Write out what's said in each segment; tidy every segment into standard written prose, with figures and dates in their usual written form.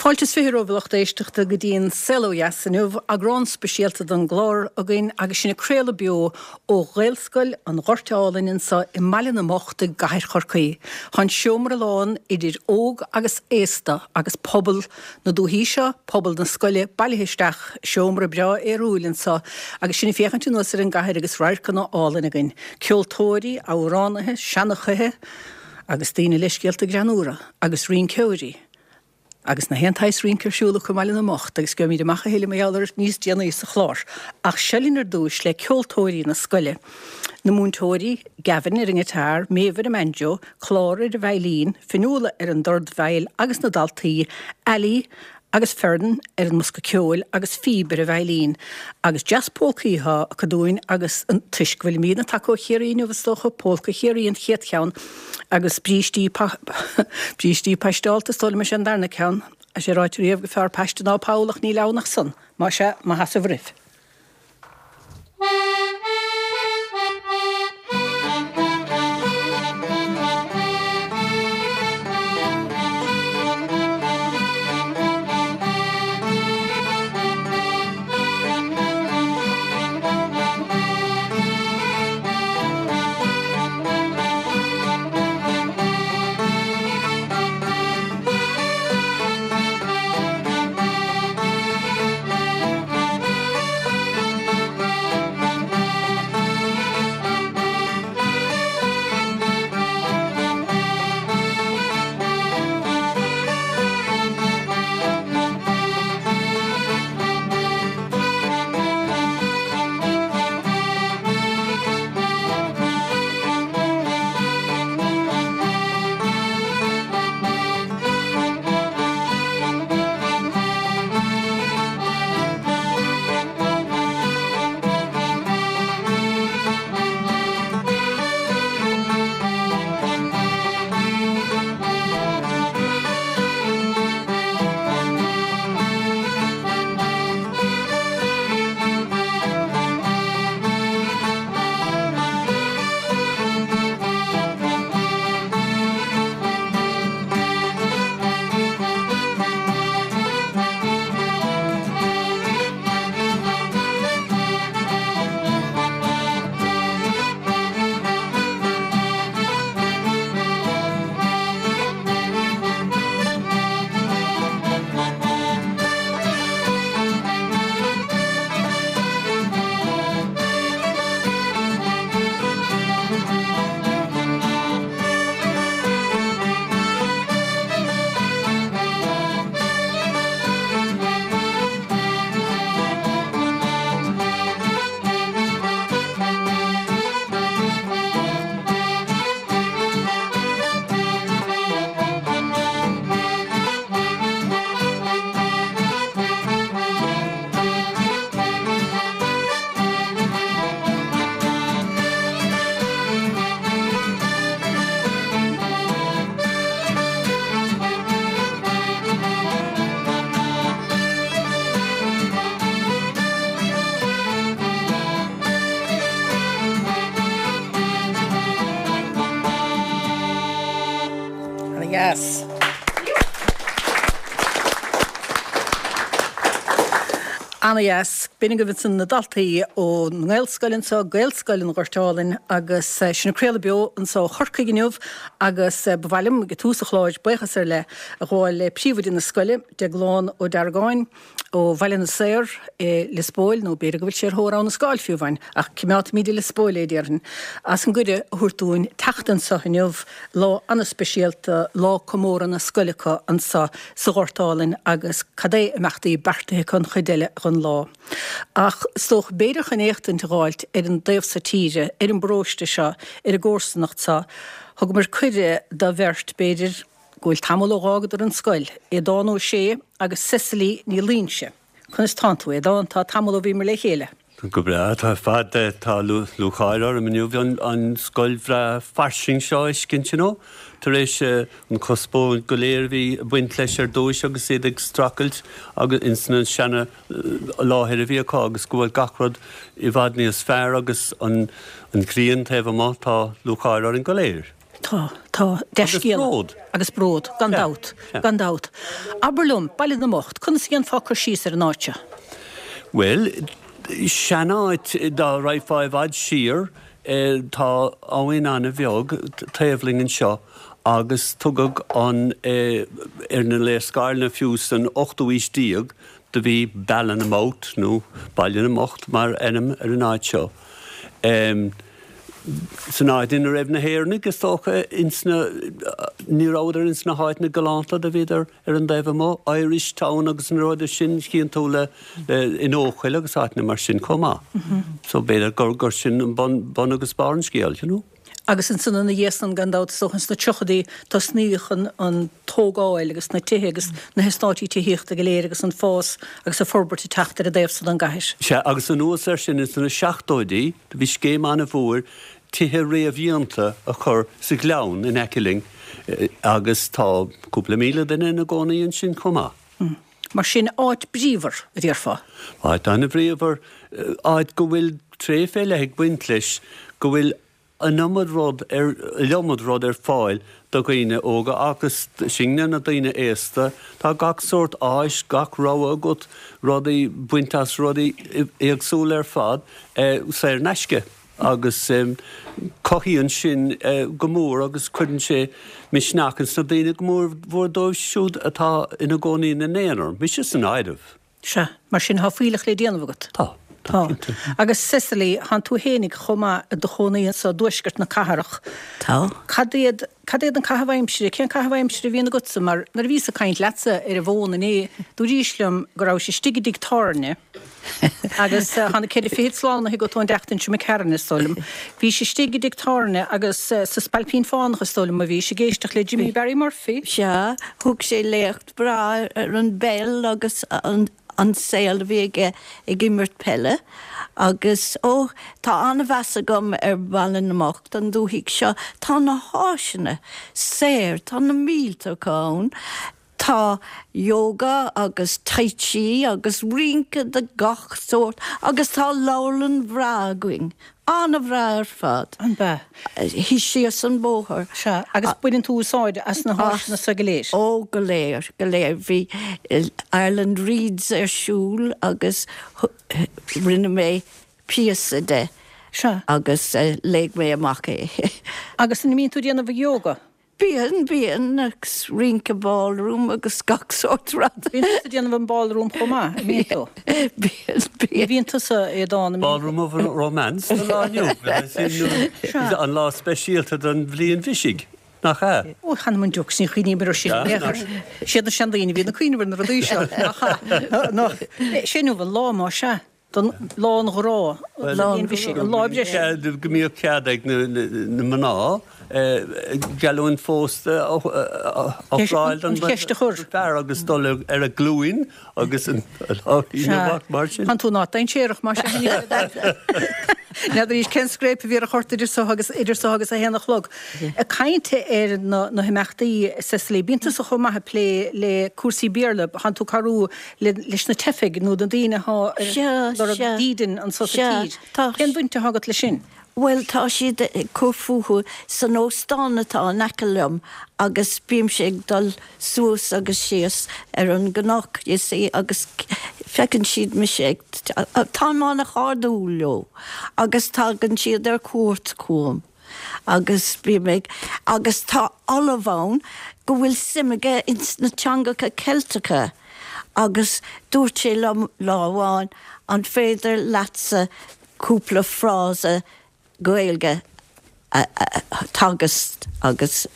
Fáilte is 20 romhaibh a lucht éisteachta go dtí an Saol Ó Dheas inniu, eagrán speisialta den gclár againn agus sinn ag craoladh beo ó Ghaelscoil an Ghoirt Álainn anseo i mBaile na mBocht i gCathair Chorcaí. Tá an seomra lán idir óg agus aosta agus pobal na dúichí seo, pobal na scoile bailithe isteach i seomra breá aerúil anseo agus sinn ag féachaint anuas ar an gcathair agus radharcanna álainn againn. Ceoltóirí, amhránaithe, seanchaithe agus daoine le scéalta greannmhara agus rinceoirí. Agus na haon tsaghas rince ar siúl acu i mBaile na mBocht agus gheobhaimid amach a thuilleadh mar gheall air níos déanaí sa chlár. Ach seo linn ar dtúis le ceoltóirí na scoile, na múinteoirí, Gavin ar an ngiotár, Méabh ar an mbanjo, Clára ar an veidhlín, Fionnuala ar an dordveidhil agus na daltaí, Ali agus Fern ar an mbosca ceoil agus Phoebe ar an veidhlín. Agus dreas pólcaí atá acu dúinn agus toisc go bhfuilimidne tagtha ó Chiarraí inniu is dócha, Pólca Chiarraí an chéad cheann agus brístí brístí paisteálta is dóigh liom is é an darna ceann. Tá sé ráite riamh gur fearr paiste ná poll ach níl ann ach san. Más ea, maith as roimh. Ana-dheas. Ana-dheas. B'in agaibh ansan na daltaí ón nGaelscoil anseo, Gaelscoil an Ghoirt Álainn, agus sinn ag craoladh beo anseo ó Chorcaigh inniu agus ba mhaith liom ag tús an chláir buíochas ar leith a ghabháil le príomhoide na scoile, Deaglán Ó Deargáin ó Bhaile na Saor i Lios Póil, nó b'fhéidir go bhfuil sé ar thóir Abha na Scáil fiú amháin, ach coimeádfaimid i Lios Póil é, déarfainn, as an gcuireadh a thabhairt dúinn teacht anseo inniu. Lá an-speisialta, lá comórtha na scoile acu anseo sa Ghort Álainn agus cad é imeachtaí beartaithe acu an chuid eile den lá. Ach is dócha, b'fhéidir chun éachtaint a dh'fháilt ar an dtaobh so tíre, ar an bparóiste seo, ar an gcomharsanacht seo, thugamar cuireadh do bheirt, b'fhéidir, go bhfuil tamall ó dh'fhágadar an scoil, Aodán Ó Sé agus Cecily Ní Loingsigh. Conas tánn tú, Aodán? Tá tamall ó bhíomar le chéile. Go breá, tá ar fad. Tá lúcháir orm inniu an scoil bhreá fairsing seo a fheiscint, you know, tar éis an conspóid go léir a bhí ag baint leis ar dtúis agus iad ag streachailt agus ins na seana láthair a bhí acu agus go bhfuil gach rud i bhfad níos fearr agus an ghrian taobh amuigh, tá lúcháir orainn go léir. Tá, tá. Dea-scéala. Agus bród. Agus bród, gan dabht, gan dabht. Abair liom, Baile na mBocht, conas a dhéanfá cur síos ar an áit seo? Bhuel, seanáit, dá raghfá i bhfad siar, tá abhainn an-bheag taobh linn anseo agus tugadh an, ar na léarscáileanna fiú san ochtú aois déag, do bhí Ballinamouth nó Baile na mBocht mar ainm ar an áit seo. San áit ina raibh na hÉireannaigh, is dócha, ins na, ní rabhadar ins na háiteanna galánta, do bhíodar ar an dtaobh amuigh, Irish Town agus na rudaí sin, chíonn tú le, le, in Eochaill agus áiteanna mar sin chomh maith. So b'fhéidir gur, gur sin an bun, bun agus barr an scéil, you know. Agus ansan ina dhiaidh san, gan dabht, is dócha ins na tríochaidí, tosnaíodh an, an tógáil agus na tithe agus na heastáití tithíochta go léir agus an fás agus an forbairt ag teacht ar an dtaobh so den gcathair. Sea, agus anuas air sin, ins na seachtóidí, do bhí scéim an-mhór tithe réamhdhéanta a chur sa ghleann in aice linn agus tá cúpla míle duine ina gcónaí ansin chomh maith. Mar sin, áit bríomhar, a déarfá. Áit an-bhríomhar, áit go bhfuil tréith fé leith ag baint leis, go bhfuil an iomad rud ar, iliomad rud ar fáil do dhaoine óga agus sinne, na daoine aosta. Tá gach sórt áis, gach rogha agat, rudaí, baint as rudaí éagsúla ar fad, saor in aisce. Agus cothaíonn sin go mór agus cuireann sé misneach ins na daoine, go mór mhór dóibh siúd atá ina gcónaí ina n-aonar, mise san áireamh. Sea, mar sin tá fuílleach le déanamh agat. Tá. Tá. Agus Cecily, thánn tú fhéinig chomh maith i do chónaí anso i dtuaisceart na cathrach. Tá. Cad iad, cad iad an caitheamh aimsire, cén caitheamh aimsire a bhíonn agatsa? Mar nuair a bhíos ag caint leatsa ar an bhfón inné, dúraís liom go rabhais istigh i dtigh tábhairne agus tá na ceithre fichid slánaithe agat ón dtseachtain seo imigh tharainn, is dóigh liom. Bhís istigh i dtigh tábhairne agus sa Spailpín Fánach, is dóigh liom, a bhís ag éisteacht le Jimmy Barry Murphy. Sea, thug sé léacht breá ar an bpeil agus an saol a bhí aige ag imirt peile agus, ó, tá an-mheas agam ar Bhaile na mBocht, an dúthaigh seo. Tá na háiseanna saor, tá na mílte acu ann. Tá yoga agus tai chi agus rince de gach sórt agus tá leabharlann bhreá againn. An-bhreá ar fad. An bea? Thíos síos an bóthar. Sea, agus baineann tú úsáid as na háiseanna so go léir? Ó, go léir, go léir. Bhí Ireland Reads ar siúl agus rinne mé píosa de. Sea. Agus léigh mé amach é. Agus an mbíonn tú ag déanamh yoga? Bíonn, bíonn, agus rince ballroom agus gach sórt rud. Bíonn tusa ag déanamh an ballroom chomh maith, an mbíonn tú? Bíonn, bíonn. Bíonn tusa, Aodán, an mbíonn tú? Ballroom of Romance don lá inniu, an lá speisialta don bhliain bhisigh, nach ea? Ó, th'anam 'on deoch, ní chuimhním air sin in aon chor. Siad na seandaoine a bhíonn ag cuimhneamh ar na rudaí seo, nach ea? Nó, sé inniu an lá, más ea. Don lá an ghrá, lá an bhisigh, an lá breise. Go mbíodh cead ag na mná geallúint phósta a ofráil don fear agus dul ar a glúin agus an lá mar sin. Tá tú ná dainséarach mar sin. N'fheadar arís cén scréip a bhí ar an chárta idir so agus idir so agus a haon a chlog. Ag caint ar na himeachtaí, Cecily, bíonn tusa chomh maith ag plé le cúrsaí Béarla, thánn tú ag cabhrú leis na teifigh nó na daoine atá ag lorg dídean anso sa tír. Cén bhaint atá agat leis sin? Bhuel, tá siad ag cur fúthu san óstán atá in aice liom agus bímse ag dul suas agus síos ar an gcnoc, you see, agus feiceann siad mise ag, táim an-chairdiúil leo agus tagann siad ar cuairt chugam. agus bím ag, agus tá ollamh ann go bhfuil suim aige ins na teangacha Ceilteacha agus dúirt sé liom lá amháin an féidir leatsa cúpla frása Gaeilge a theagasc agus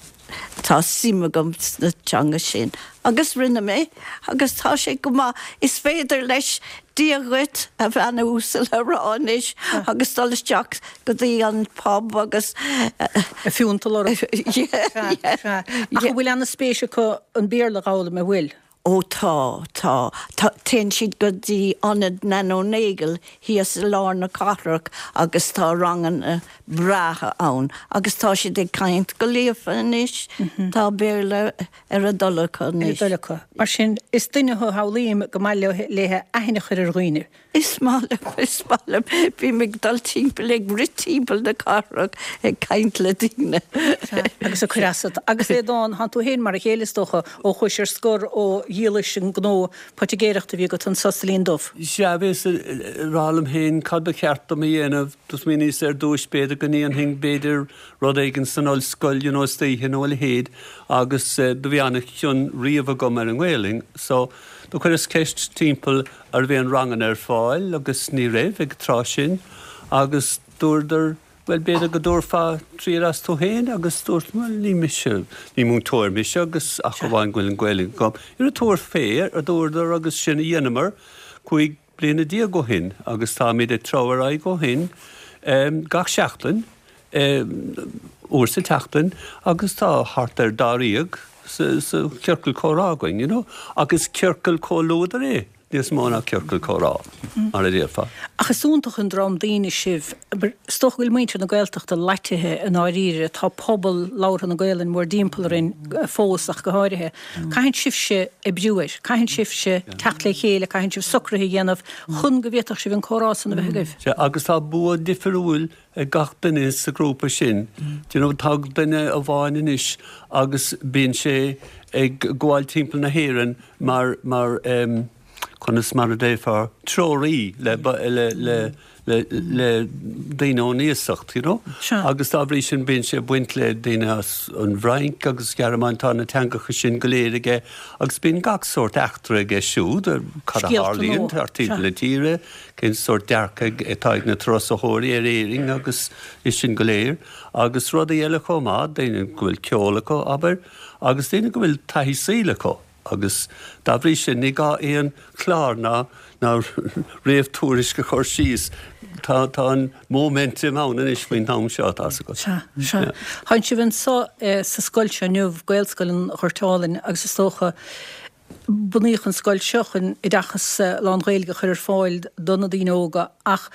tá suim agam sna teanga sin. Agus rinne mé, agus tá sé go maith. Is féidir leis Dia dhuit, a bhean uasal a rá anois agus dul isteach go dtí an pub agus. A phiúnt a lorg. Sea, sea. Ach an bhfuil ana-spéis acu an Béarla a dh'fhoghlaim, an bhfuil? Ó tá, tá. Tá, téann siad go dtí Ionad Nano Nagle thíos i lár na cathrach agus tá ranganna breátha ann agus tá siad ag caint go líofa anois, tá Béarla ar a dtoil acu anois. Ar a dtoil acu. Mar sin, is duine thú a shamhlaím go maith léithe aithne a chur ar dhaoine. Is maith liom, is maith liom. Bím ag dul timpeall, ag rith timpeall na cathrach ag caint le daoine. Sea, agus ag cur asat. Agus Aodán, thánn tú féin mar a chéile is dócha, ó chuais ar scor ó dhíolais an gnó poitigéireachta a bhí agat anso sa Linn Dubh. Sea, bhíos ag rá liom féin cad ba cheart dom a dhéanamh. Do smaoiníos ar dtúis b'fhéidir go ndéanfainn b'fhéidir rud éigin san ollscoil you know istoíche nó a leithéid agus do bhí an-chion riamh agam ar an nGaelainn so do chuireas ceist timpeall an raibh aon ranganna ar fáil agus ní raibh ag an tráth sin agus dúradar bhuel b'fhéidir go dtabharfá triail as tú féin agus dúirt bhuel ní mise, ní múinteoir mise agus ach amháin go bhfuil an Ghaeilge agam. Ara tabhair fé a dúradar agus sin a dheineamar 15 bliana ó shin agus táimid ag treabhadh ar aghaidh ó shin gach seachtain. uair sa tseachtain agus tá thart ar dáréag sa chiorcal comhrá againn, you know. Ach is ciorcal comhluadair é níos mó ná ciorcal comhrá, mar a déarfá. Ach is iontach an dream daoine sibh. Is dócha go bhfuil muintir na Gaeltachta loitithe i ndáiríre. Tá pobal labhartha na Gaelainne mórthimpeall orainn fós ach go háirithe. Caitheann sibhse oibriú air. Caitheann sibhse teacht le chéile, caitheann sibh socruithe a dhéanamh chun go bhféadfadh sibh an comhrá san a bheith agaibh. Sea, agus tá bua difriúil ag gach duine sa ghrúpa sin. Do you know, tá duine amháin anois agus bíonn sé ag gabháil timpeall na hÉireann mar, mar em, conas mar a déarfá, treoraí le, le, le, le, le daoine ón iasacht, you know. Sea. Agus dá bhrí sin bíonn sé ag baint le daoine as an bhFrainc agus Gearmáin, tá na teangacha sin go léir aige agus bíonn gach sórt eachtra aige siúd, cad a Scéalta nua. tharlaíonn thart timpeall na tíre. cén sórt dearcaidh atá ag na turasóirí ar Éirinn agus é sin go léir, agus rudaí eile chomh maith, daoine go bhfuil ceol acu, abair, agus daoine go bhfuil taithí saoil acu agus dá bhrí sin ní gá aon chlár ná ná réamhthuairisc a chur síos, tá tá an móiminteam ann anois faoin am seo, tá's agat. Sea, sea. Tánn sibh anso sa scoil seo inniu, Gaelscoil an Ghoirt Álainn, agus is dócha, Bunaíodh an scoil seo chun oideachas lán-Ghaeilge a chur ar fáil do na daoine óga ach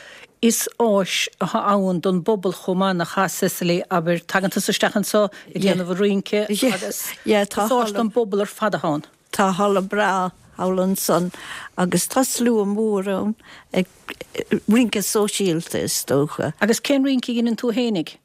is áis atá ann don bpobal chomh maith, nach ea, Cecily? Abair, tagann tusa isteach anseo ag déanamh an rince agus is áis don bpobal ar fad atá ann. Tá halla breá thall ansan agus tá slua mór ann ag Rince sóisialta, is dócha. Agus cén rince a dheineann tú fhéinig?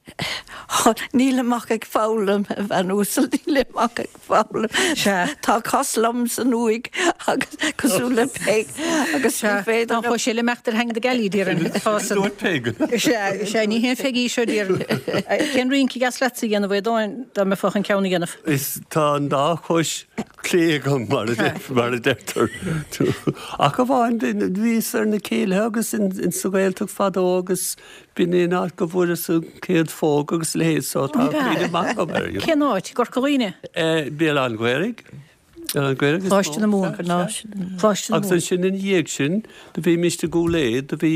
Nílim ach ag foghlaim, a bhean uasal, nílim ach ag foghlaim. Sea. Tá cos lom san uaigh agus cosúil le Peig agus ní féidir liom. Tá sé le imeacht ar theanga na gealaí, déarfainn. Tá san. Dúirt Peig. Sea, sea, ní haon Pheig í seo, déarfainn. Cén rince a dheas leatsa a dhéanamh, a Aodáin, dá mbeifeá chun ceann a dhéanamh? Is tá an dá chois clé agam, mar a deirtear. Ach amháin, bhíos ar na céilithe agus in sa Ghaeltacht fadó agus b'in é an áit go bhfuaireas an chéad phóg agus a leithéid so tá cuimhne maith agam air. Cén áit? I gCorca Dhuibhne? Béal Átha an Ghaorthaidh. Béal Átha an Ghaorthaidh is mó. Coláiste na Mumhan. Coláiste na Agus Mumhan. ansin ina dhiaidh sin, do bhímist i gCúil Aodha, do bhí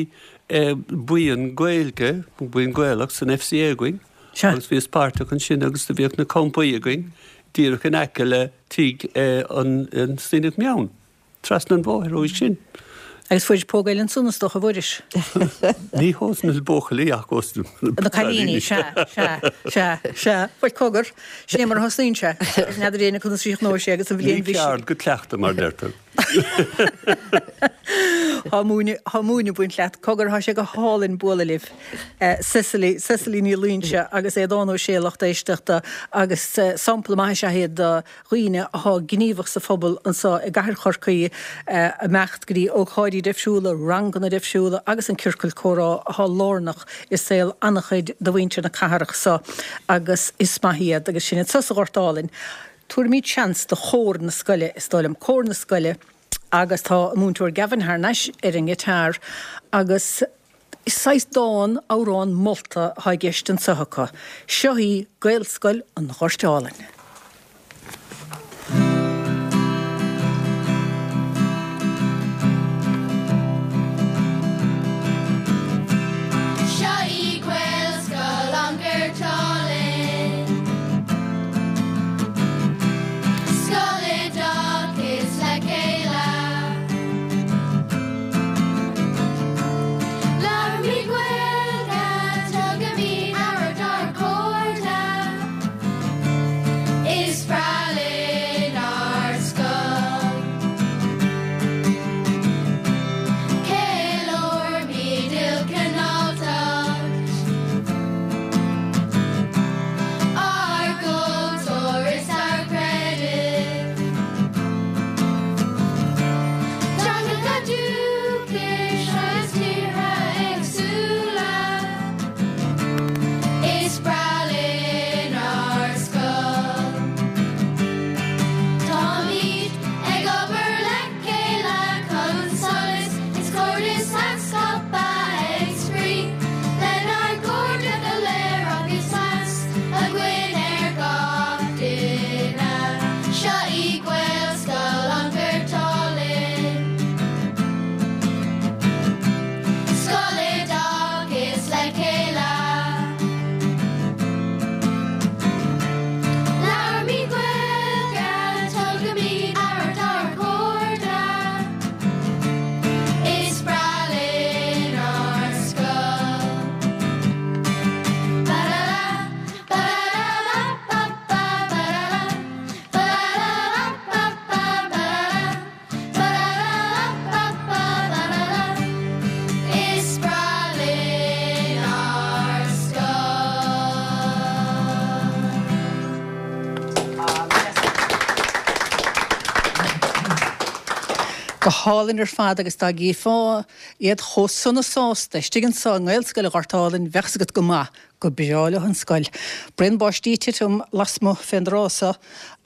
buíon Gaeilge, buíon Gaelach san FCA againn agus bhíos páirteach ansin agus do bhíodh na campaí againn díreach in aice le tigh an Síneach Meann, trasna an bhóthair uaidh sin. Agus fuairis póg eile ansan is dócha, a Mhuiris? Ní hós na buachaillí ach ós na cailíní. Sea, sea, sea, sea. Bhuel, cogar, sin é mar a thosnaíonn sé. N'fheadar éinne conas a chríochnóidh sé agus an bhliain Ní ceard go cleachtadh, mar deirtear. Tá múineadh, tá múineadh ag baint leat. Cogar, tá sé go hálainn bualadh libh. Cecily, Cecily Ní Loingsigh agus Aodán Ó Sé, lucht éisteachta, agus sampla maith is ea iad de dhaoine atá gníomhach sa phobal anseo i gcathair Chorcaí, ag imeacht go dtí ócáidí difriúla, ranganna difriúla agus an ciorcal comhrá atá lárnach i saol an-chuid de mhuintir na cathrach seo agus is maith iad agus sin iad sa Ghort Álainn. Tabharfaimid seans do chór na scoile, is dóigh liom, cór na scoile agus tá an múinteoir Gavin thar n-ais ar an ngiotár agus is saghas dán, amhrán molta atá i gceist anseo acu. Seo í Gaelscoil an Ghoirt Álainn. Seo í Gaelscoil an Ghoirt Álainn. Scoil oideachais le Gaeilge. Go hálainn ar fad agus dá gcífeá iad chomh sona sásta istigh anso i nGaelscoil an Ghoirt Álainn bheadh 's agat go maith gur breá leo an scoil. Braon báistí ag titim lasmuigh fén dtráth so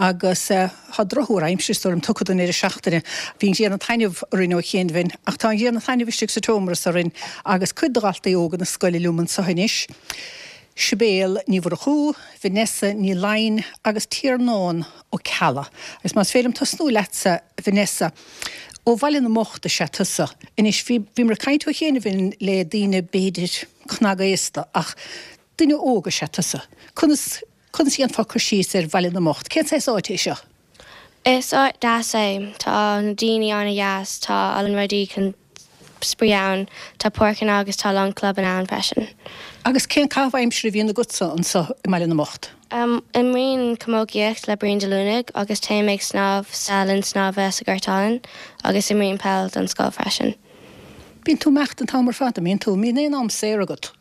agus tá drochthuar aimsire is dóigh liom tugtha don deireadh seachtaine. Bhí an ghrian ag taitneamh orainn ó chiainbhinn ach tá an ghrian ag taitneamh istigh sa tseomra so orainn agus cuid de dhaltaí óga na scoile liom anso anois. Sibéal Ní Mhurchú, Vanessa Ní Laighin agus Tiarnán Ó Ceallaigh. Agus más féidir liom tosnú leatsa, Vanessa. Ó Bhaile na mBocht is ea tusa. Anois, bhí, bhíomar ag caint ó chianaibh le daoine b'fhéidir cnagaosta ach duine óg is ea tusa. Conas, conas a dhéanfá cur síos ar Bhaile na mBocht? Cén saghas áite é seo? Is áit deas é. Tá na daoine an-deas. Tá a lán rudaí chun spraoi ann. Tá páirceanna agus tá a lán clubanna ann freisin. Agus cén caitheamh aimsire a bhíonn agatsa anseo i mBaile na mBocht? Imrím camógaíocht le Brian De Lúnaigh agus téim ag snámh sa linn snámha sa Ghort Álainn agus imrím peil don scoil freisin. Bíonn tú ag imeacht an t-am ar fad, an mbíonn tú? An mbíonn aon am saor agat?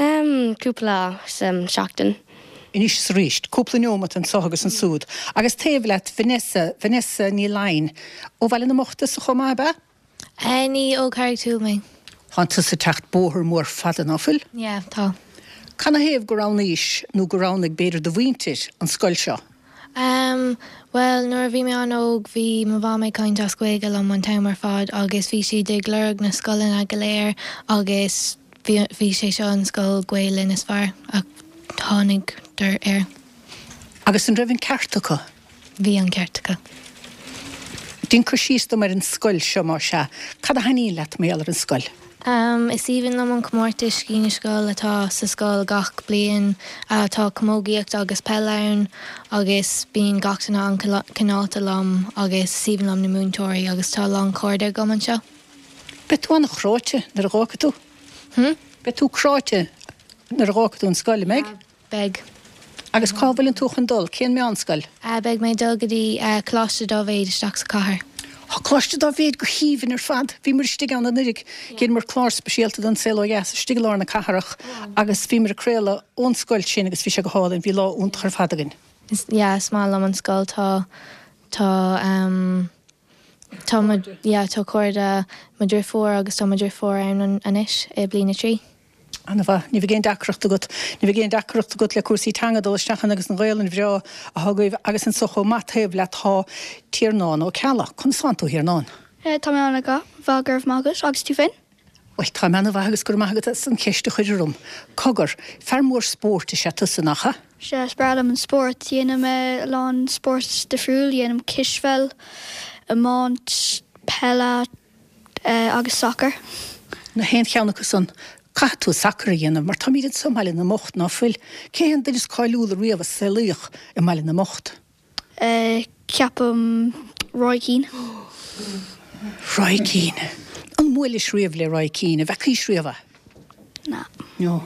Cúpla lá sa seachtain. Anois is arís. Cúpla neomat anseo agus ansúd. Agus taobh leat, Vanessa, Vanessa Ní Laighin. Ó Bhaile na mBocht tusa chomh maith, ab ea? Ní, ó Carraig Thúill mé. Tánn tusa ag teacht bóthar mór fada, ná fuil? Yeah, tá. Canathaobh gur roghnaís, nó gur roghnaigh b'fhéidir do mhuintir, an scoil seo? Em, bhuel, nuair a bhí mé an-óg bhí mo mham ag caint as Gaeilge liom an t-am ar fad agus bhí siad ag lorg na scoileanna go léir agus bhí, bhí sé seo an scoil Gaelainn is fearr a tháinigdar air. Agus an raibh an ceart acu? Bhí an ceart acu. Déan cur síos dom ar an scoil seo, más ea. Cad a thaitníonn leat mar gheall ar an scoil? Is aoibhinn liom an comórtas Scí na Scol atá sa scoil gach bliain. Tá camógaíocht agus peil ann agus bíonn gach duine an-cineálta liom agus is aoibhinn liom na múinteoirí agus tá a lán cairde agam anseo. Beidh tú an-chráite nuair a dh'fhágfaidh tú. Hm? Beidh tú cráite nuair a dh'fhágfaidh tú an scoil, an mbeidh? Yeah, beidh. Agus cá bhfuileann tú chun dul? Cén meánscoil? Beidh mé ag dul go dtí Coláiste Dáibhéid isteach sa chathair. Tá Coláiste Dáibhéid go haoibhinn ar fad. Bhíomar istigh ann anuraidh. Dheineamar clár speisialta don Saol Ó Dheas istigh i lár na cathrach agus bhíomar ag craoladh ón scoil sin agus bhí sé go hálainn. Bhí lá iontach ar fad againn. Yeah, is maith liom an scoil. Tá, tá, ehm, tá mo, yeah, tá cairde mo dhriofúr agus tá mo dhriofúr ann anois i bliain a 3. Ana-mhaith. Ní bheidh aon deacracht agat. Ní bheidh aon deacracht agat le cúrsaí teanga dul isteach ann agus an Ghaelainn bhreá atá agaibh agus anso chomh maith taobh leat tá Tiarnán Ó Ceallaigh. Conas tánn tú, a Thiarnáin? Tá mé ana-mhaith, go raibh maith agat. Agus tú féin? Bhuel, tá mé ana-mhaith agus go raibh maith agat as an cheist a chur orm. Cogar, fear mór spóirt is ea tusa, nach ea? Sea, is breá liom an spórt. Déanaim a lán spórt difriúil. Déanaim cispheil, iomáint, peile, agus sacar. Na haon cheann acu san, caithfidh tú sacar a dhéanamh mar táimid anso i mBaile na mBocht, ná fuil? Cé hé an duine is cáiliúla riamh a saolaíodh i mBaile na mBocht? Ceapaim Roy Keane. Roy Keane. An mbuailis riamh le Roy Keane? An bhfeacaís riamh é? Ná. No.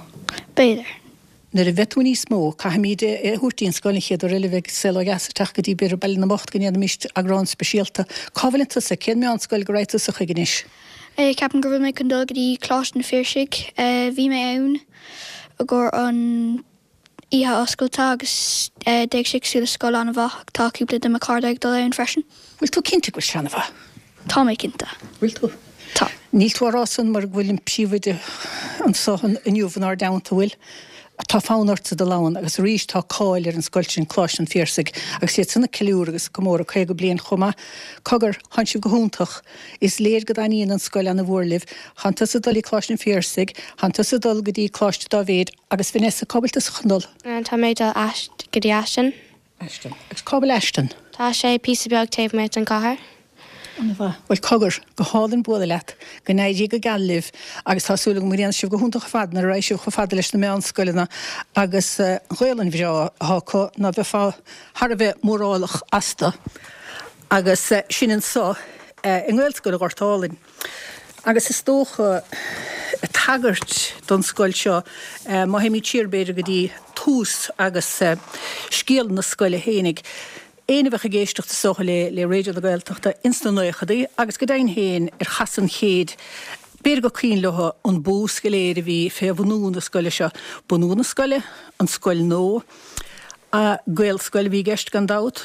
B'fhéidir. Nuair a bheidh tú níos mó, caithfimid é a thabhairt dtí an scoil an chéad uair eile a bheidh Saol Ó Dheas ag teacht go dtí b'fhéidir Baile na mBocht go ndéanfaimis eagrán speisialta. Cá bhfuileann tusa? Cén meánscoil go raghaidh tusa chuig anois? Ceapaim go bhfuil mé chun dul go dtí Coláiste an Phiarsaigh. Bhí mé ann i gcomhair an oíche oscailte agus d'éag sé cosúil le scoil an-mhaith. Tá cúpla de mo chairde ag dul ann freisin. Bhfuil tú cinnte go bhfuil sé an-mhaith? Tá mé cinnte. Bhfuil tú? Tá. Níl tú á rá san mar go bhfuil an príomhoide anso inniu inár dteannta, bhfuil? Tá fonn ortsa dul ann agus arís tá cáil ar an scoil sin, Coláiste an Phiarsaigh, agus iad san ag ceiliúradh agus ag comóradh 50 bliain chomh maith. Cogar, thánn sibh go hiontach. Is léir go dtaitníonn an scoil ana-mhór libh. Thánn tusa ag dul dtí Coláiste an Phiarsaigh, thánn tusa ag dul go dtí Coláiste Dáibhéid agus Vanessa, cá bhfuil tusa chun dul? Tá mé ag dul go dtí Ashton. Ashton. Agus cá bhfuil Ashton? Tá sé píosa beag taobh amuigh den chathair. Ana-mhaith. Bhuel, cogar, go hálainn bualadh leat. Go n-éirí go geal libh agus tá súil agam go ndéanfaidh sibh go hiontach ar fad nuair a raghaidh sibh chomh fada leis na meánscoileanna agus an Ghaolainn bhreá atá acu, ná beifeá thar a bheith mórálach astu. Agus sin anso i nGaelscoil Ghort Álainn. Agus is dócha, tagairt don scoil seo, má théimid siar b'fhéidir go dtí tús agus scéal na scoile fhéinig, éinne a bheadh ag éisteacht is dócha le le Raidió na Gaeltachta ins na naochadaí agus go deimhin féin ar chasadh an chéid, b'fhéidir gur cuimhin leo an bús go léir a bhí fé bhunú na scoile seo. Bunú na scoile, an scoil nua, Gaelscoil a bhí i gceist gan dabht.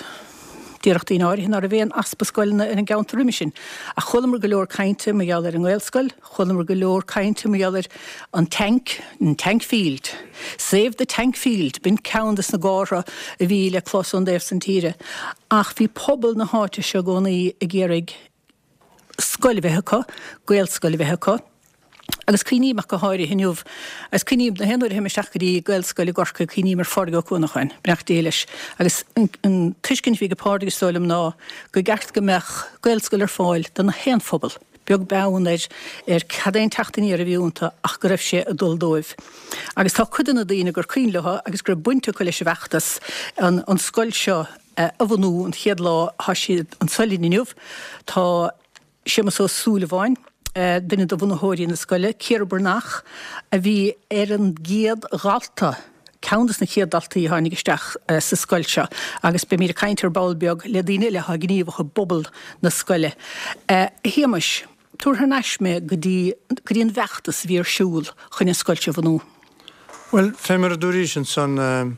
Déarfadh daoine áirithe ná raibh aon easpa scoileanna ar an gceantar roimhe sin. Ach chualamar go leor cainte mar gheall ar an nGaelscoil, chualamar go leor cainte mar gheall ar an tank, an tank field. Save the tank field, b'in ceann des na gártha a bhí le clos ón dtaobh san tíre. Ach bhí pobal na háite seo i gcónaí ag iarraidh scoil a bheith acu, Gaelscoil a bheith acu. Agus cuimhním ach go háirithe inniu, agus cuimhním na haon uair a théim isteach go dtí Gaelscoil i gCorcaigh, cuimhním ar Phádraig Ó Cuanacháin, beannacht Dé leis. Agus an tuiscint a bhí ag Pádraig is dóigh liom ná go gceart go mbeadh Gaelscoil ar fáil do na haon phobal, beag beann ar ar cad é an teacht aniar a bhí iontu ach go raibh sé ag dul dóibh. Agus tá cuid de na daoine gur cuimhin leo agus go raibh baint acu leis an bhfeachtas an an scoil seo a bhunú an chéad lá, tá siad anso linn inniu. Tá. Séamus Ó Súilleabháin, duine de bhunaitheoirí na scoile, Ciara Breathnach, a bhí ar an gcéad dhalta, ceann de na chéad daltaí a tháinig isteach sa scoil seo agus beimid ag caint ar ball beag le daoine eile atá gníomhach i bpobal na scoile. A Shéamais, tabhair thar n-ais mé go dtí go dtí an bhfeachtas a bhí ar siúl chun an scoil seo a bhunú. Bhuel, fé mar a dúraís ansan,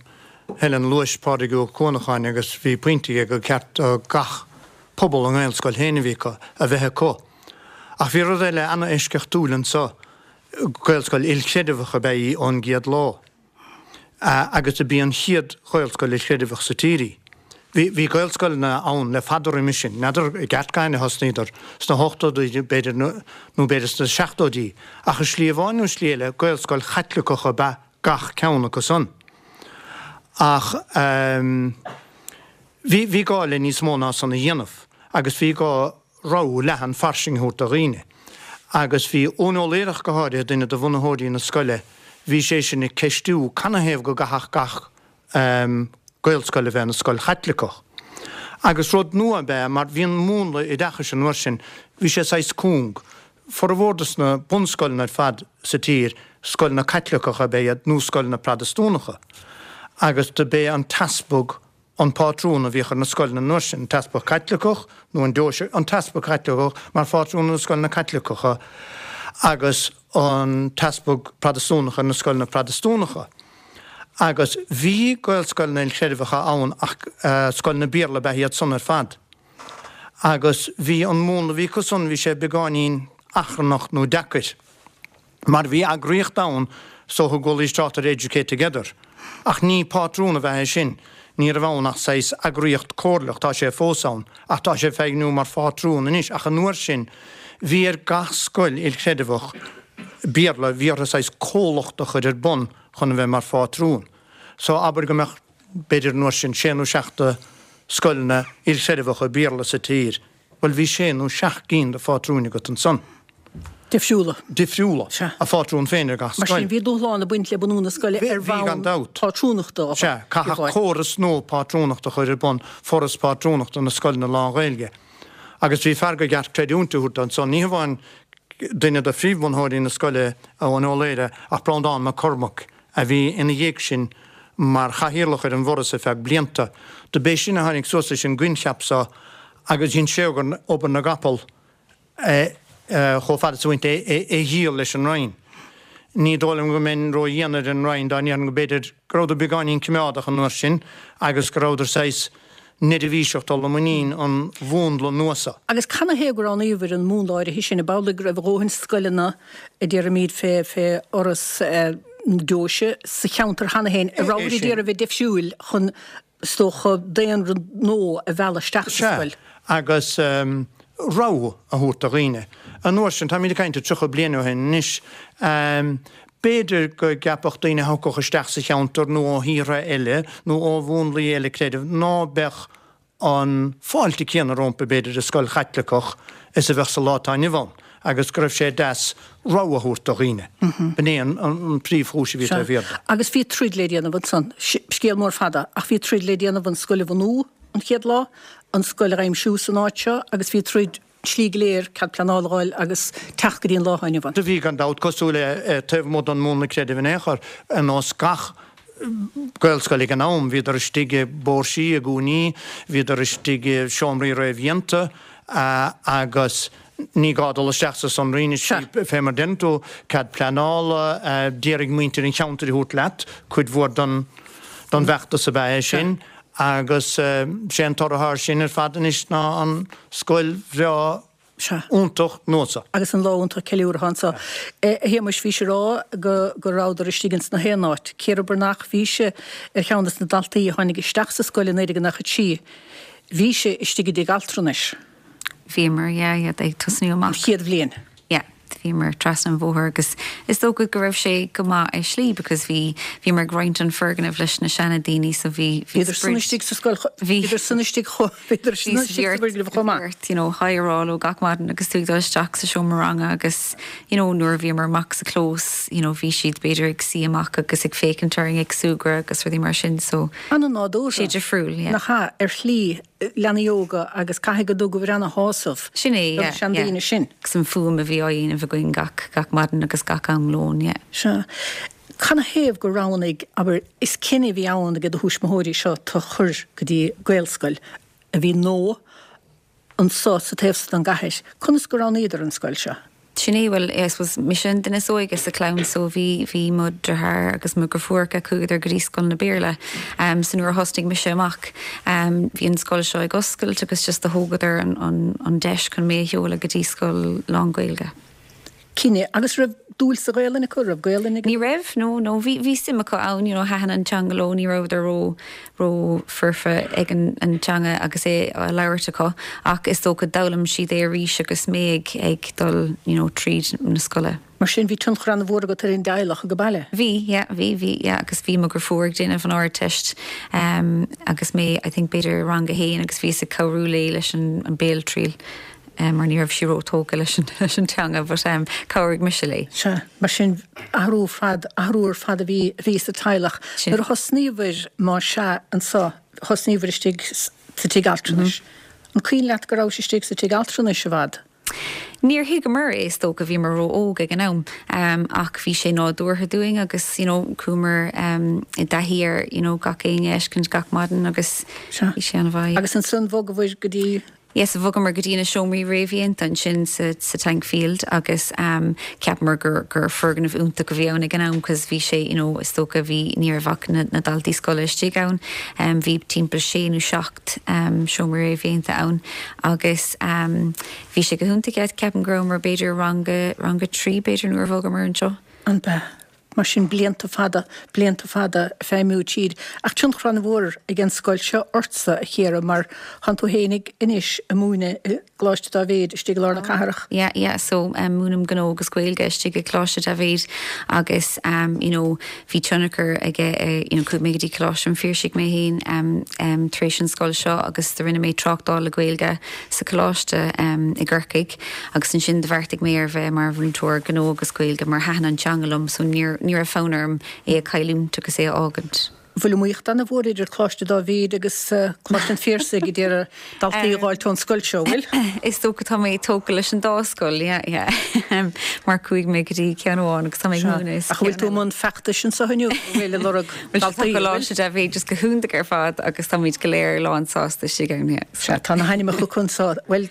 Helen, luais Pádraig Ua Cuanacháin agus bhí pointe aige gur ceart do gach pobal a nGaelscoil féin a bhí acu, a bheith acu. Ach bhí rud eile ana-eisceachtúil anso, Gaelscoil ilchreideamhach ab ea í ón gcéad lá. Agus dob í an chéad Ghaelscoil ilchreideamhach sa tír í. Bhí, bhí Gaelscoileanna ann le fada roimis sin, n'fheadar i gceart cathain a thosnaíodar, sna hochtóidí b'fhéidir nó b'fhéidir sna seachtóidí, ach i slí amháin nó slí eile, Gaelscoil Chaitliceach ab ea gach ceann acu san. Ach ehm. Bhí, bhí gá le níos mó ná san a dhéanamh agus bhí gá rogha leathan fairsing a thabhairt do dhaoine. Agus bhí Eoin Ó Laoire ach go háirithe, duine de bhunaitheoirí na scoile, bhí sé sin ag ceistiú canathaobh go gcaithfeadh gach Gaelscoil a bheith ina scoil Chaitliceach. Agus rud nua ab ea mar bhí an múnla oideachais an uair sin, bhí sé saghas cúng. Formhór de sna bunscoileanna ar fad sa tír, scoileanna Caitliceacha ab ea iad nó scoileanna Protastúnacha. Agus do b'é an t-easpag an pátrún a bhíodh ar na scoileanna an uair sin, an t-easpag Caitliceach nó an deoise, an t-easpag Caitliceach mar phátrún ar na scoileanna Caitliceacha agus an t-easpag Protastúnach ar na scoileanna Protastúnacha. Agus bhí Gaelscoileanna ilchreidmheacha ann ach scoileanna Béarla ab ea iad san ar fad. Agus bhí an múnla a bhí acu san, bhí sé beagáinín achrannach nó deacair. Mar bhí eagraíocht ann is dócha go bhfualaís trácht ar Educate Together. Ach ní pátrún ab ea é sin. Ní raibh ann ach saghas eagraíocht comhairleach, tá sé fós ann, ach tá sé ag feidhmiú mar phátrún anois, ach an uair sin bhí ar gach scoil ilchreideamhach Béarla, bhí orthu saghas comhlacht a chur ar bun chun a bheith mar phátrún. So abair go mbeadh, b'fhéidir an uair sin, sé nó seacht de scoileanna ilchreideamhacha Béarla sa tír, Bhuel, bhí sé nó seacht gcinn de phátrúin agat ansan. Difriúla. Difriúla. Sea. A phátrún féin ar gach scoil. Mar sin, bhí dúshlán ag baint le bunú na scoile ar Bhí, gan bhonn dabht. pátrúnachta a Sea, caithfeadh córas nua pátrúnachta a chur ar bun, Foras Pátrúnachta na Scoileanna Lán-Ghaeilge. Agus bhí fear go gceart creidiúint a thabhairt dó ansan, ní hamháin duine de phríomhbhunaitheoirí na scoile, Eoin Ó Laoire, ach Breandán Mac Cormaic, a bhí ina dhiaidh sin mar chathaoirleach ar an bhForas ar feadh blianta. Do b'é sin a tháinig suas leis an gcoincheap so agus dhein sé obair na gcapall chomh fada is a bhaint é a dhíol leis an Roinn. Ní dóigh liom go mbeinn ró-dhian ar an Roinn dá ndéarfainn go b'fhéidir go rabhadar beagáinín coimeádach an uair sin agus go rabhadar saghas neirbhíseach dul i muinín an mhúnla nua so. Agus canathaobh gur roghnaíodar an múnla áirithe sin? Ab amhlaidh go raibh a dhóthain scoileanna, a déarfaimid, fé fhoras na deoise sa cheantar cheana féin, a rabhadar ag iarraidh a bheith difriúil chun, is dócha, daonra nua a mhealladh isteach sa scoil? Sea, agus rogha a thabhairt do dhaoine. An uair sin, táimid ag caint ar 30 bliain ó shin anois, b'fhéidir go gceapfadh daoine a thiocfadh isteach sa cheantar nó ó thíortha eile nó ó mhúnlaí eile creidimh ná beadh an fáilte céanna rompu, b'fhéidir, i scoil Chaitliceach is a bheadh sa lá atá inniu ann agus go raibh sé deas rogha a thabhairt do dhaoine. B'in é an príomhchúis a bhí taobh thiar de. Agus bhí troid le déanamh ansan. Scéal mór fada, ach bhí troid le déanamh an scoil a bhunú an chéad lá, an scoil a aimsiú san áit seo agus bhí troid tslí go léir, cead pleanála a fháil agus teacht go dtí an lá atá inniu ann. Do bhí, gan dabht, cosúil le taobh amuigh den mhúnla creidimh in aon chor, ar nós gach Gaelscoil ag an am, bhíodar istigh i bpóirsí, i gcúinní, bhíodar istigh i seomraí réamhdhéanta agus ní gá dul isteach sa sonraí anois, fé mar deireann tú, cead pleanála, d'iarraidh muintir an cheantair a thabhairt leat, cuid mhór den bhfeachtas ab ea é sin. Agus sé an toradh air sin ar fad anois ná an scoil bhreá iontach nua seo. Agus an lá iontach ceiliúrtha anseo. A Shéamuis, bhís ag rá go go rabhadar istigh ins na haon áit. Ciara Breathnach, bhí sí ar cheann des na daltaí a tháinig isteach sa scoil i 1993. Bhí sí istigh i dtigh altranais. Bhíomar, yeah, yeah, ag tosnú amach. An chéad bhliain. Yeah, bhíomar trasna an bhóthair agus is dócha go raibh sé go maith i slí because bhí, bhíomar ag roinnt an foirgneamh leis na seana daoine so bhí, bhí Bhíodar san istigh sa scoil, bhíodar san istigh chomh, bhíodar san istigh sa bhfoirgneamh chomh maith. Ort, you know, hi a rá leo gach maidin agus tú ag dul isteach sa seomra ranga agus, you know, nuair a bhíomar amach sa chlós, you know, bhí siad b'fhéidir ag suí amach agus ag féachaint orainn ag súgradh agus rudaí mar sin so. An-nádúrtha. Sé difriúil, yeah. Nach ea, ar shlí. leanaí óga agus caithfidh go dtugadh ana-shásamh Sin é, do na yeah, yeah. seandaoine sin. Agus an fuaim a bhí á dhéanamh againn gach, gach maidin agus gach am lóin, yeah. Sea. Canathaobh gur roghnaigh, abair, is cinneadh a bhí ann ag do thuismitheoirí seo tú a chur go dtí Gaelscoil a bhí nua anso sa taobh so den gcathair. Conas gur roghnaíodar an scoil seo? Sin é, bhuel, I suppose, mise an duine is óige sa chlann so bhí, bhí mo dheartháir agus mo dheirfiúracha, chuadar go dtí scoileanna Béarla. So nuair a thosnaigh mise amach, bhí an scoil seo ag oscailt agus just do thógadar an, an, an deis chun mé a sheoladh go dtí scoil lán-Ghaeilge. Cinneadh. Agus raibh dúil sa Ghaelainn acu? Raibh Gaelainn ag. Ní raibh, no, no. Bhí, bhí suim acu ann, you know, thaitin an teanga leo, ní rabhadar ró, ró foirfe ag an, an teanga agus é á labhairt acu ach is dócha d'fhoghlaim siad é arís agus mé ag, ag dul, you know, tríd na scoile. Mar sin bhí tionchar an-mhór agat ar an dteaghlach age baile? Bhí, yeah, bhí, bhí, yeah, agus bhí mo dheirfiúr ag déanamh an Ardteist um, agus mé, I think, b'fhéidir i rang a haon agus bhíos ag cabhrú léi leis an, an béaltriail. mar ní raibh sí ró-tógtha leis an teanga but chabhraigh mise léi. Sea, mar sin athrú fad, athrú ar fad a bhí, a bhí sa teaghlach. Nuair a thosnaíobhair, má sea, anso, thosnaíobhair istigh sa tigh altranais. An cuimhin leat go rabhais istigh sa tigh altranais i bhfad? Níor thuigeamar é, is dócha, bhíomar ró-óg ag an am, ach bhí sé nádúrtha dúinn agus you know chuamar i dtaithí ar you know gach éinne a fheiscint gach maidin agus bhí sé an-mhaith. Agus ansan bhogabhair go dtí Yes, bhogamar go dtí na seomraí réamhdhéanta ansin sa sa Tankfield agus ehm cheapamar gur gur foirgneamh iontach a bhí ann ag an am cos bhí sé you know is dócha bhí ní raibh ach na na daltaí scoile istigh ann ehm bhí timpeall sé nó 7 ehm seomra réamhdhéanta ann agus ehm bhí sé go hiontach yeah ceapaim go rabhamar b'fhéidir rang a rang a 3 b'fhéidir nuair a bhogamar anseo. An b'ea? Mar sin, blianta fada, blianta fada ag feidhmiú tríd. Ach tionchar an-mhór ag an scoil seo ortsa, a Chiara, mar tánn tú fhéinig anois ag múineadh i gColáiste Dáibhéid istigh i lár na cathrach. Yeah, yeah, so múinim gnó agus Gaeilge istigh i gColáiste Dáibhéid agus you know bhí tionchar aige you know chuaigh mé go dtí Coláiste an Phiarsaigh mé féin tar éis an scoil seo agus do rinne mé tráchtáil le Gaeilge sa choláiste i gCorcaigh. Agus ansin do bheartaigh mé ar bheith mar mhúinteoir gnó agus Gaeilge mar thaitin an teanga liom so níor ní raibh fonn orm é a chailliúint agus é a fhágaint. Bhfuil iomaíocht an-mhór idir Coláiste Dáibhéid agus Coláiste an Phiarsaigh ag iarraidh daltaí a dh'fháilt ón scoil seo, bhfuil? Is dócha tá mé tógtha leis an dá scoil, yeah, yeah. Mar chuaigh mé go dtí ceann amháin agus tá mé ag múineadh sa Ach an bhfuil tú i mbun feachtais anseo inniu, an bhfuil, ag lorg daltaí, an bhfuil? Tá Coláiste Dáibhéid just go hiontach ar fad agus táimid go léir lán sásta istigh ann, yeah. Sea, tá na hainmneacha acu anseo. Bhuel,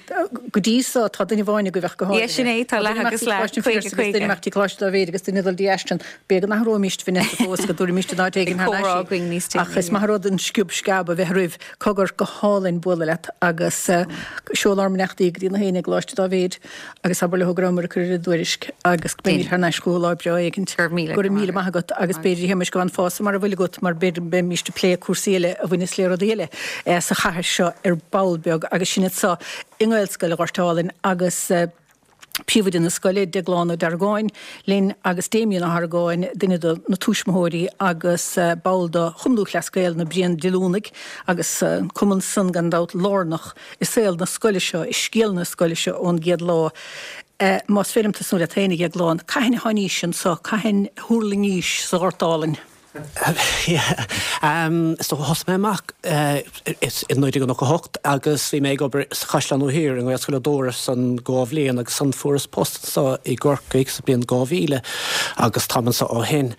go dtí so, tá duine amháin agaibh ach go háirithe. Yeah, sin é, tá leath agus leath, 50, 50. Duine amach dtí Coláiste Dáibhéid agus duine ag dul dtí Ashton. B'fhéidir go n-athróimíst Vanessa fós, go dtabharfaimíst in áit éigin thar n-ais í. Ach is maith an rud an sciob sceab a bheith roimh. Cogar, go hálainn bualadh leat agus seol ár mbeannachtaí go dtí na héinne i gColáiste Dáibhéid agus abair leo go rabhamar ag cur ar a dtuairisc agus go mbeimid thar n-ais chucu lá breá éigint. Go raibh míle maith agat agus b'fhéidir a Shéamais go bhfanfása mar a bhfuil agat mar b'fhéidir go mbeimíst ag plé cúrsaí eile a bhaineas le rudaí eile. sa chathair seo ar ball beag agus sinn anseo i nGaelscoil an Ghoirt Álainn agus príomhoide na scoile, Deaglán Ó Deargáin, linn agus Damien Ó hArgáin, duine de na tuismitheoirí agus ball de Chumann Lúthchleas Gael na Bréandiolúnaigh agus an cumann san gan dabht lárnach i saol na scoile seo, i scéal na scoile seo ón gcéad lá. Más féidir liom tosnú leat féin, a Dheagláin, cathain a tháinís anso, cathain a thuirlingís sa Ghort Álainn? Is dócha thosaigh mé amach i 1998 agus bhí mé ag obair sa Chaisleán Nua Thiar i nGaelscoil Ó Dóra san dhá bhliain agus ansan fuaireas post anseo i gCorcaigh sa bliain 2000 agus táim anseo ó shin.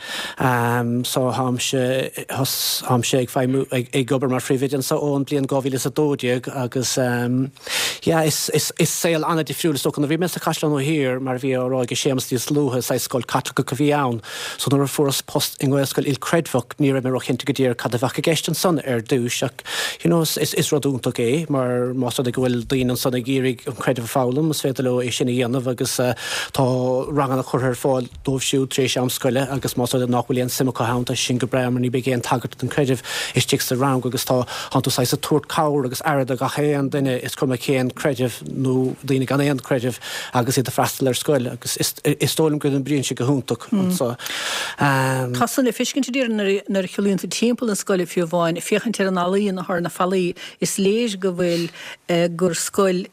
So táimse táimse ag feidhmiú ag obair mar phríomhoide anseo ón bliain 2012 agus yeah is is is saol an-difriúil is dócha nuair a bhí mé sa Chaisleán Nua Thiar mar a bhí á rá ag Séamus níos luaithe saghas scoil Caitliceach a bhí ann. So nuair a fuaireas post i nGaelscoil. ilchreidmheach, ní raibh mé róchinnte go díreach cad a bheadh i gceist ansan ar dtúis ach you know is rud iontach é mar más rud é go bhfuil daoine ansan ag iarraidh an creideamh a foghlaim is féidir leo é sin a dhéanamh agus tá ranganna curtha ar fáil dóibh siúd tar éis am scoile agus más rud é nach bhfuil aon suim acu ann tá sin go breá mar ní bheidh aon tagairt don chreideamh istigh sa rang agus tá tánn tú saghas ag tabhairt cabhair agus aire do gach aon duine is cuma cén creideamh nó daoine gan aon chreideamh agus iad ag freastal ar scoil agus is dóigh liom go n-oibríonn sé go hiontach anso. Tá san le feiscint a déarfainn nuair a shiúlaíonn tú timpeall na scoile fiú amháin, ag féachaint ar an ealaíon atá ar na fallaí, is léir go bhfuil gur scoil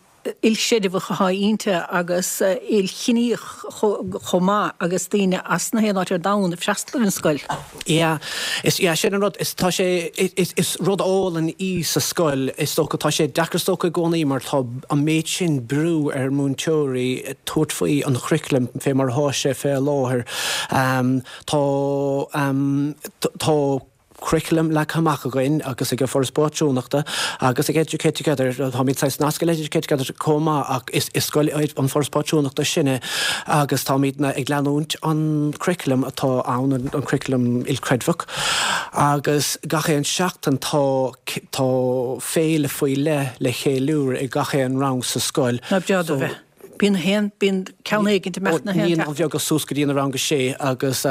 ilchreidmheach atá inti agus ilchiníoch chomh maith agus daoine as na haon áit ar domhan ag freastal ar an scoil. Yeah, is, yeah, sin an rud, is, tá sé, is, is rud álainn í sa scoil, is dócha, tá sé deacair is dócha i gcónaí mar tá an méid sin brú ar múinteoirí tabhairt faoi an churriculum fé mar atá sé fé láthair. Tá, tá curriculum leagtha amach againn agus ag an Foras Pátrúnachta agus ag Educate Together, táimid saghas nasctha le Educate Together chomh maith ach is, is scoil an Foras Pátrúnachta sinne agus táimidne ag leanúint an curriculum atá ann, an curriculum ilchreidmheach agus gach aon seachtain tá, tá féile faoi leith le cheiliúradh ag gach aon rang sa scoil. Ná breá do bheith. Bíonn a haon, bíonn ceann éigint ag imeacht na haon Naíonáin Bheaga suas go dtí na rang a sé agus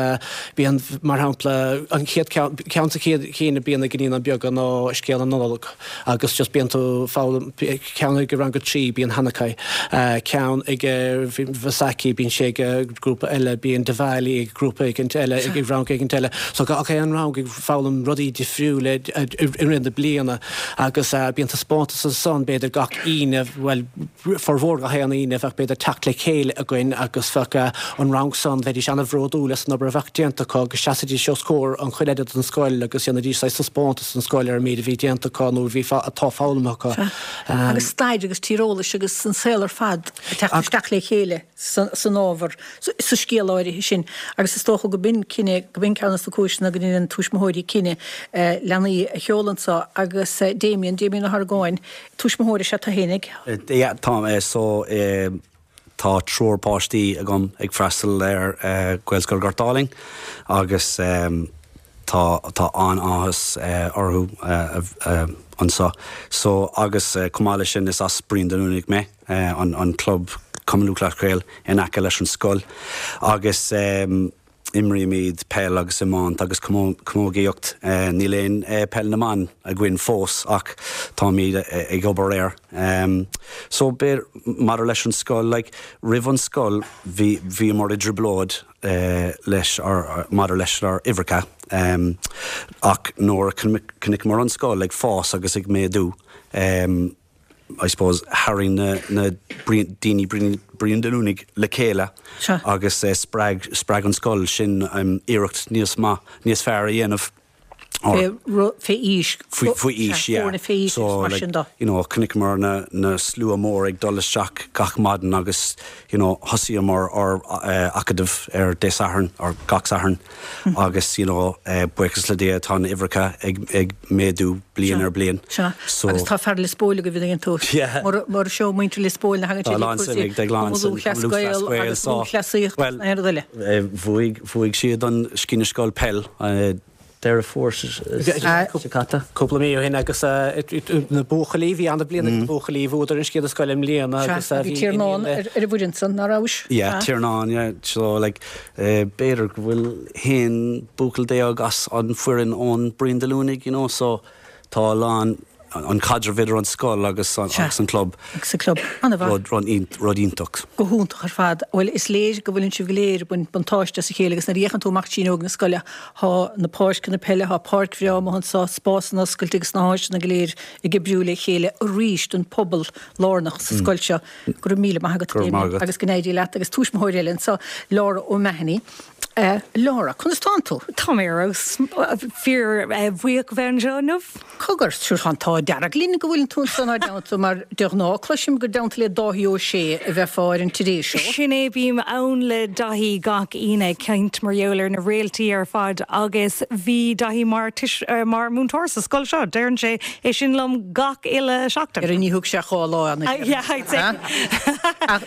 bíonn, mar shampla, an chéad ceann, ceann sa chéad chinn a bíonn ag Naíonáin Bheaga ná Scéal na Nollag agus just bíonn tú foghlaim, ceann ag rang a 3 bíonn Hanukkah, ceann ag Vaisakhi bíonn sé ag grúpa eile, bíonn Diwali ag grúpa éigint eile, ag rang éigint eile. So gach aon rang ag foghlaim rudaí difriúla i rith na bliana agus bíonn taispeántas ansan b'fhéidir gach Aoine, bhuel, formhór gach aon Aoine bheadh b'fhéidir teacht le chéile againn agus bheadh an rang san, bheidís ana-bhródúil as an obair a bheadh déanta acu agus sheasaidís os comhair an chuile oide den scoil agus dhéanaidís saghas taispeántas don scoil ar an méid a bhí déanta acu nó a bhí atá foghlamtha acu. Sea. Agus stair agus tíreolais agus an saol ar fad ag teacht isteach le chéile san ábhar, sa scéal áirithe sin. Agus is dócha go b'in cinneadh, go b'in ceann de na cúiseanna go ndéanann tuismitheoirí cinneadh leanaí a sheoladh anso agus Damien, Damien Ó hArgáin, Tuismitheoir is ea tú fhéinig? Yeah, tá, so tá triúr páistí agam ag freastal ar Gaelscoil Ghort Álainn agus tá tá an-áthas orthu anseo. So agus chomh maith leis sin is as Bruíon Dún Luanaigh mé, an club Cumann Lúthchleas Gael in aice leis an scoil agus Imrímid peil agus iomáint agus camógaíocht. Níl aon peil na mban againn fós ach táimid ag obair air. So b'fhéidir maidir leis an scoil, like roimh an scoil bhí bhíomar i dtrioblóid leis ár maidir leis ár uimhreacha ach nuair a chonaiceamar an scoil ag fás agus ag méadú, I suppose, tharraing na na daoine Bruíon Dún Luanaigh le chéile agus spreag spreag an scoil sin iarracht níos maith, níos fearr a dhéanamh. Fé fé aois. Faoi aois, yeah. Foirne fé aois agus mar sin de. So, you know, chonaiceamar na na slua mór ag dul isteach gach maidin agus, you know, thosaíomar ár acadamh ar Dé Sathairn, ar gach Satharn. Agus, you know, buíochas le Dia, tá na uimhreacha ag, ag méadú bliain ar bliain. Sea. So. Agus tá fear Lios Póil agaibh an dtuigeann tú. Yeah. Mura, mura seo muintir Lios Póil na thagann siad ag cúrsaí Cumann Lúthchleas Gael agus lúthchleasaíocht agus na haon rud eile. Bhuaigh, bhuaigh siad an Sciath na Scol Peil. Deireadh Fómhair seo caite. Cúpla mí ó shin agus na buachaillí, bhí an-bhliain ag na buachaillí, bhuadar an Sciath na Scoile i mbliana agus bhí Tiarnán ar an bhfoireann san, ná rabhais? Yeah, Tiarnán, yeah. So like b'fhéidir go bhfuil haon buachaill déag as an foireann ón Bruíon Dé Luanaigh, you know, so tá a lán an caidreamh idir an scoil agus an club. Agus an club. An-mhaith. Rud iontach. Go hiontach ar fad. Bhuel, is léir go bhfuileann sibh go léir ag baint buntáiste as a chéile agus nuair a fhéachann tú amach trí fhuinneog na scoile, thá na páirceanna peile, thá páirc bhreá amuigh anso, spásanna oscailte agus na háiseanna go léir ag oibriú le chéile arís don phobal lárnach sa scoil seo. Go raibh míle maith agat, Go raibh maith agat. Agus go n-éirí leat. Agus tuismitheoir eile anso, Laura O'Mahony. Laura, conas tánn tú? Tá mé ar fheabhas. Fíor bhuíoch a bheith anseo inniu. Cogar, sure tá an t-ádh dearg linn go bhfuileann tú anso inár dteannta mar de ghnáth cloisim gur i dteannta le Dáithí Ó Sé a bheifeá ar an Today Show. Sin é, bím ann le Daithí gach Aoine ag caint mar gheall ar na réaltaí ar fad agus bhí Daithí mar mar múinteoir sa scoil seo. Deireann sé é sin liom gach uile seachtain. Ar ní thug sé dhá lá ann. Yeah, I'd say.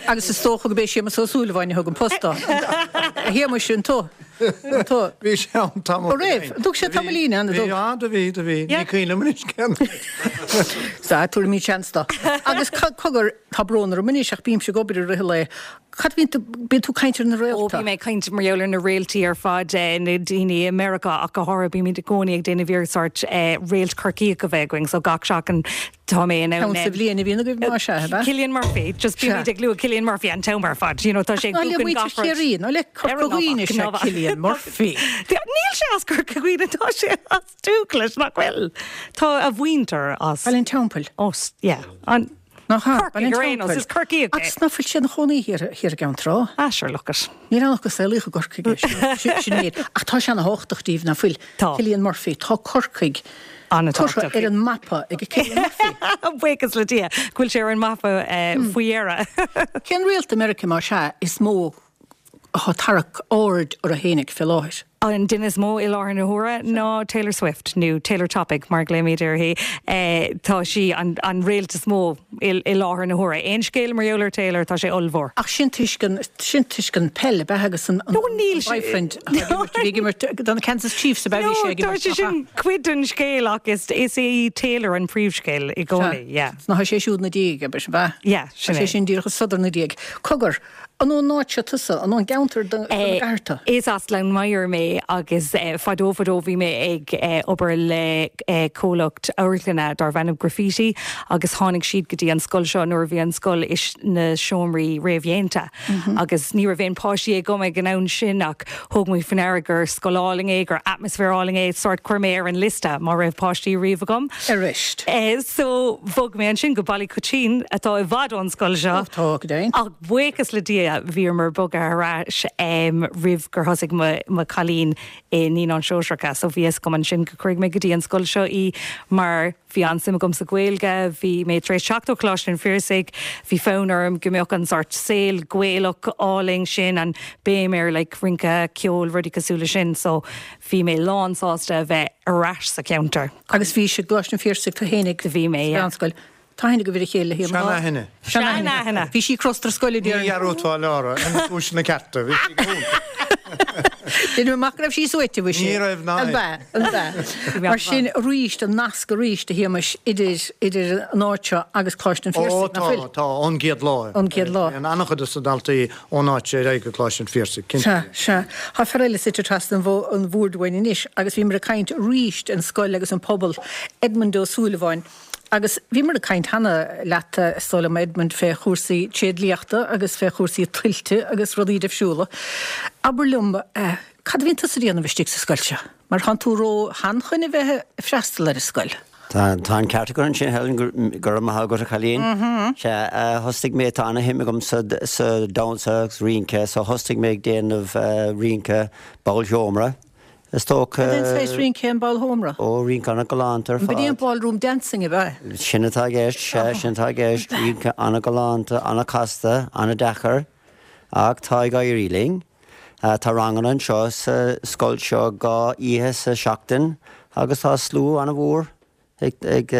Agus is dócha go b'é Séamus Ó Súilleabháin a thug an post dó. A Shéamuis, an tú? Tá. Bhí sé ann tamall. Ó raibh? An dtug sé tamaillín ann, an dtug? Bhí, á, do bhí, do bhí. Ní cuimhin liom anois cén fhad. Sea, tabharfaimid seans dó. Agus cogar, tá brón orm anois ach bímse ag obair i rith an lae. Cad a bhíonn tú, bíonn tú ag caint ar na Ó, réalta? bím ag caint mar gheall ar na réaltaí ar fad, na daoine i Meiriceá ach go háirithe, bímid i gcónaí ag déanamh iarracht sórt réalt Corcaíoch a bheith againn, so gach seachtain tá mé in ann. Ceann sa bhliain a bhíonn agaibh más ea, ab ea? Cillian Murphy, just bímid ag lua Cillian Murphy an t-am ar fad, you know, tá sé ag Ná le buachan muintir gach rud. Chiarraí, ná le Corca Dhuibhne is ea Cillian Murphy. Níl sé as Corca Dhuibhne, tá sé as Dúghlais, nach bhfuil? Tá a mhuintir as. Baile an Teampaill. Ó, yeah, an. Nach ea? Corcaigh ar aon nós, is Corcaíoch é. Agus ná fuil sé ina chónaí thiar i gCeann Trá? Ah, sure, look it. Níl ann ach gur saolaíodh i gCorcaigh é, sin an méid. Ach tá sé ana-thábhachtach díbh, ná fuil? Tá. Cillian Murphy, tá Corcaigh curtha ar an mapa ag Cillian Murphy. Buíochas le Dia go bhfuil sé ar an mapa faoi dheireadh. Cén réalt i Meiriceá, más ea, is mó atá ag tarrac aird orthu fhéinig fé láthair. An duine is mó i láthair na huaire ná Taylor Swift, nó Taylor Topic mar a ghlaoimid uirthi. Tá sí an réalt is mó i láthair na huaire. Aon scéal mar gheall ar Taylor, tá sé ollmhór. Ach sin toisc an, sin toisc an peil, ab ea, agus an boyfriend atá ag imirt, a bhí ag imirt do na Kansas Chiefs, ab ea, bhí sé ag imirt, Tá sé sin cuid den scéal ach is é Taylor an príomhscéal i gcónaí, yeah. Sea, tá sé siúd 'na diaidh, ab ea? Yeah, sin é. Tá sé sin díreach ag sodar 'na diaidh. Cogar, An ón áit seo tusa? An ón gceantar den gcathair tú? Is as Gleann Maghair mé agus fadó fadó bhí mé ag obair le comhlacht amharclainne darbh ainm Graffiti agus tháinig siad go dtí an scoil seo nuair a bhí an scoil sna seomraí réamhdhéanta agus ní raibh aon páistí agam ag an am sin ach thóg mé faoi ndeara gur scoil álainn é, gur atmaisféar álainn é, sórt chuir mé ar an liosta má raibh páistí riamh agam. Arís. So bhog mé ansin go Baile Coitín atá i bhfad ón scoil seo. Ó tá, go deimhin. Ach buíochas le Dia bhíomar bogtha ar ais roimh gur thosaigh mo chailín i Naíonáin Shóisearacha so bhí fhios agam ansin go cuirfidh mé go dtí an scoil seo í mar bhí an-suim agam sa Ghaeilge, bhí mé tar éis teacht ó Choláiste an Phiarsaigh, bhí fonn orm go mbeadh an sórt saol Gaelach álainn sin, an béim ar like rince, ceol, rudaí cosúil le sin so bhí mé lán sásta a bheith ar ais sa cheantar. Agus bhís i gColáiste an Phiarsaigh tú fhéinig. Do bhí mé, yeah. Sa mheánscoil. Tá aithne agaibh ar a chéile le hAodh. Seanaithne. Seanaithne. Bhí sí crosta ar scoil a déarfainn. Ní dhearúdfá Lára ar na cúiseanna cearta. Bhí sí go hiontach. Deinim amach go raibh sí suaite, bhí sí. Ní raibh ná An b'ea? An b'ea? Mar sin arís, an nasc arís, a Shéamais, idir, idir an áit seo agus Coláiste an Ó Phiarsaigh, nach tá, bhfuil? tá, ón gcéad lá. Ón gcéad lá. Téann an-chuid de na daltaí ón áit seo ar aghaidh go Coláiste an Phiarsaigh, cinnte. Sea, sea. Tá fear eile suite trasna an bhoird uainn anois agus bhíomar ag caint arís an scoil agus an pobal, Edmond Ó Súilleabháin. Agus bhíomar ag caint cheana leat, is dóigh liom, Edmond, fé chúrsaí tréidliachta agus fé chúrsaí tuilte agus rudaí deifriúla. Abair liom, cad a bhíonn tusa a dhéanamh istigh sa scoil seo? Mar thánn tú ró-shean chun a bheith ag freastal ar an scoil. Tá an ceart agat ansin, Helen, go raibh maith agat, a chailín. Sea, thosaigh mé, tá ana-shuim agam sa damhsa agus rince, so thosaigh mé ag déanamh rince ballsheomra, is dócha. Cad é an saghas rince é an ballsheomra? Ó, rince ana-ghalánta ar fad. An b'in é an ballroom dancing, ab ea? Sin atá i gceist, sea, sin atá i gceist, rince ana-ghalánta, ana-chasta, ana-deacair, ach tá ag éirí linn. Tá ranganna anseo sa scoil seo 2 oíche sa seachtain agus tá slua an-mhór ag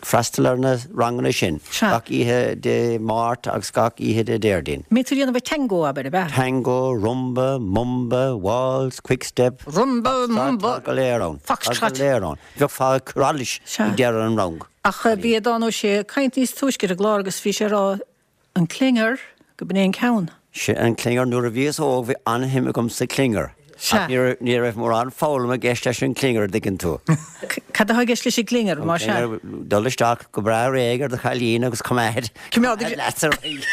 freastal ar na ranganna sin, gach oíche Dé Máirt agus gach oíche Dé Déardaoin. Mbíonn tú ag déanamh tango, abair, ab ea? Tango, rumba, mumba, waltz, quickstep, Rumba, mumba, tá go léir ann. Foxtrot. Tá go léir ann. Bheifeá ag cur allais ag deireadh an rang. Ach bhí Aodhán Ó Sé ag caint níos túisce ar an gclár agus bhí sé ag rá An clinger, go b'in é an ceann. Sea, an clinger. Nuair a bhíos óg bhí an-shuim agam sa clinger. Sea. Ach ní raibh mórán foghlama i gceist leis an clinger, an dtuigeann tú. Cad atá i gceist leis an gclinger, An más ea? clinger, dul isteach go breá réidh ar do chailín agus coimeád, Coimeád leat ar aghaidh.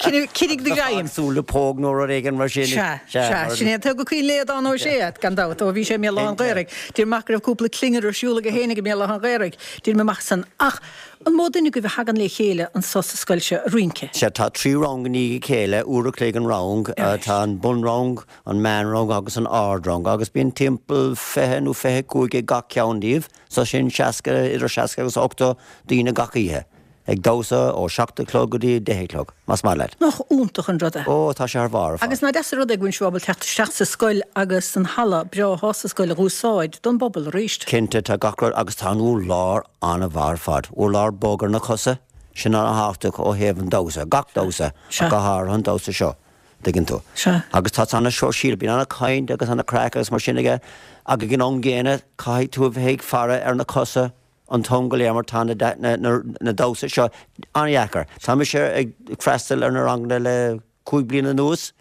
Coinnigh do ghreim. Súil le póg nó rud éigin mar sin. Sea, sea. Sin é an tuige gur cuimhin le Aodhán Ó Sé, gan dabht, ó bhí sé i mBéal Átha an Ghaorthaidh. Déarfainn amach go raibh cúpla clinger ar siúl aige féinig i mBéal Átha an Ghaorthaidh. Déarfainn amach san. Ach An mó duine agaibh a thagann le chéile anso sa scoil seo ag rince? Sea, tá 3 rang i ndiaidh a chéile, uair a chloig an rang. Tá an bunrang, an meánrang agus an ardrang agus bíonn timpeall 20 nó 25 ag gach ceann díobh, so sin 60, idir 60 agus 80 daoine gach oíche, ag damhsa ó 7 a chlog go dtí 10 a chlog, más maith leat. Nach iontach an rud é? Ó, tá sé thar barr ar fad. Agus nach deas an rud é go bhfuil sibh ábalta teacht isteach sa scoil agus an halla breá atá sa scoil a dh'úsáid don bpobal arís. Cinnte, tá gach rud agus tá an urlár an-mhaith ar fad. Urlár bog ar na cosa, sin an-thábhachtach ó thaobh an damhsa, gach damhsa, ach go háirithe an damhsa seo. Tuigeann tú. Sea. Agus tá sé ana-shóisialta, bíonn ana-chaint agus ana-chraic agus mar sin aige ach ag an am gcéanna caithfidh tú a bheith ag faire ar na cosa an t-am go léir mar tá na damhsa seo an-dheacair. Tá mise ag freastal ar na ranganna le 5 bliana anuas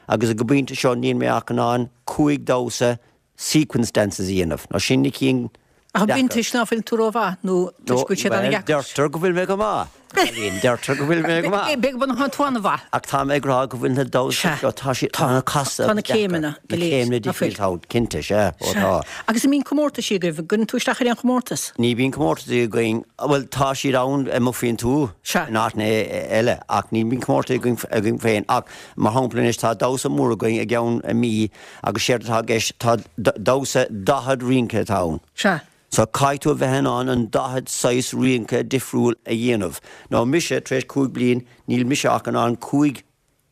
agus ag an bpointe seo níl mé ach in ann 5 damhsa sequence dances a dhéanamh. Nó sin na cinn Ach deacair. b'in toisc ná fuil tú rómhaith nó toisc go bhfuil siad Bhuel, an-dheacair? deirtear go bhfuil mé go maith, Eileen, deirtear go bhfuil mé go maith. B'fhéidir go bhfuil tú an-mhaith. Ach tá mé ag rá go bhfuil na damhsa seo, tá siad, tá na casta Tá na agus deacair. céimeanna Na go léir, céimeanna ná fuil? difriúil ann, cinnte, sea, ó Sea. tá. Agus an mbíonn comórtaisí agaibh? An gcuireann tú isteach ar aon chomórtas? Ní bhíonn comórtaisí againn, bhuel, tá siad ann amuigh faoin tuath, Sea. in áiteanna eile, ach ní bhíonn comórtais againn, againn féin. Ach, mar shampla anois, tá damhsa mór againn i gceann mí Agus séard atá i gceist, tá damhsa 40 rince atá ann. Sea. So caithfidh tú a bheith in ann an 40 saghas rince difriúil a dhéanamh. Now mise, tar éis 5 bliain, níl mise ach in ann 5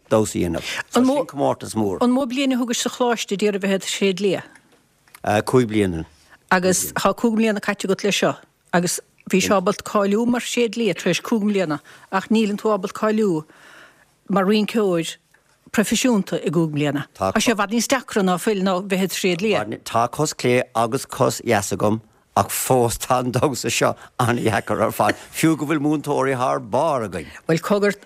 damhsa a dhéanamh. So sin comórtas mór. An mó bliain a thugais sa choláiste d'iarraidh bheith i do thréadlia? 5 bliana. Agus tá 5 mbliana caite agat leis seo. Agus bhís ábalta cáiliú mar thréadlia tar éis 5 mbliana ach níleann tú ábalta cáiliú mar rinceoir proifisiúnta i gcúig mbliana. Tá sé i bhfad níos deacra ná fuil ná bheith i do thréadlia. Tá cos clé agus cos dheas agam ach fós tá an damhsa seo an-dheacair ar fad, fiú go bhfuil múinteoirí thar barr againn. Bhuel, cogar,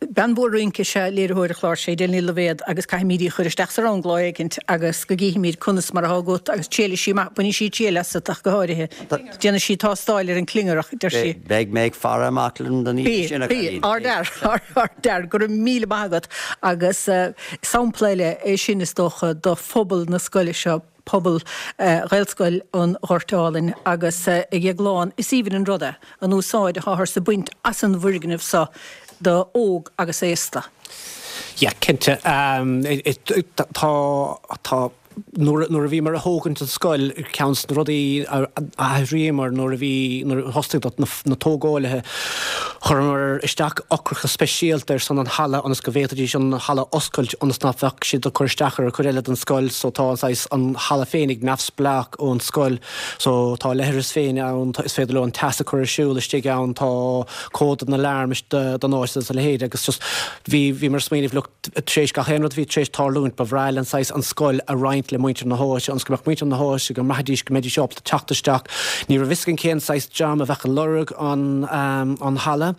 bean mhór rince is ea léiritheoir an chláir seo, Edel Ní Loibhéad, agus caithfimid í a chur isteach sa rang lá éicint agus go gcífimid conas mar atá agat agus triailfidh sí amach, bainfidh sí triail asat ach go háirithe. Déanfaidh sí tástáil ar an clingearach, deir sí. Beidh mé ag faire amach don oíche sin, a Bí, chailín. ardfhear, ardfhear, go raibh míle maith agat. Agus sampla eile é sin, is dócha, do phobal na scoile seo, pobal Ghaelscoil an Ghoirt Álainn. Agus a Dhéagláin, is aoibhinn an rud é, an úsáid atáthar ag baint as an bhfoirgneamh seo do óg agus aosta. Yeah, cinnte. Tá, tá. Nuair a bhíomar ag thógaint an scoil, ceann de na rudaí a athraíomar nuair a bhí, nuair a thosaigh na tógálaithe, chuireamar isteach eochracha speisialta ar son an halla ionas go bhféadfaidís an halla a oscailt ionas nach bheadh siad ag cur isteach ar an chuid eile den scoil so tá an saghas, an halla féinig neamhspleách ón scoil so tá leithreas féin ann, is féidir leo an teas a chur ar siúl istigh ann, tá cód don alarm don áit agus a leithéid agus just bhí, bhíomar ag smaoineamh look, Tar éis gach aon rud a bhí tar éis tarlúint, ba bhreá linn saghas an scoil a roinnt le muintir na háite, ionas go mbeadh muintir na háite, go mbraithfidís go mbeidís ábalta teacht isteach. Ní raibh fhios againn cén saghas dream a bheadh ag lorg an an halla.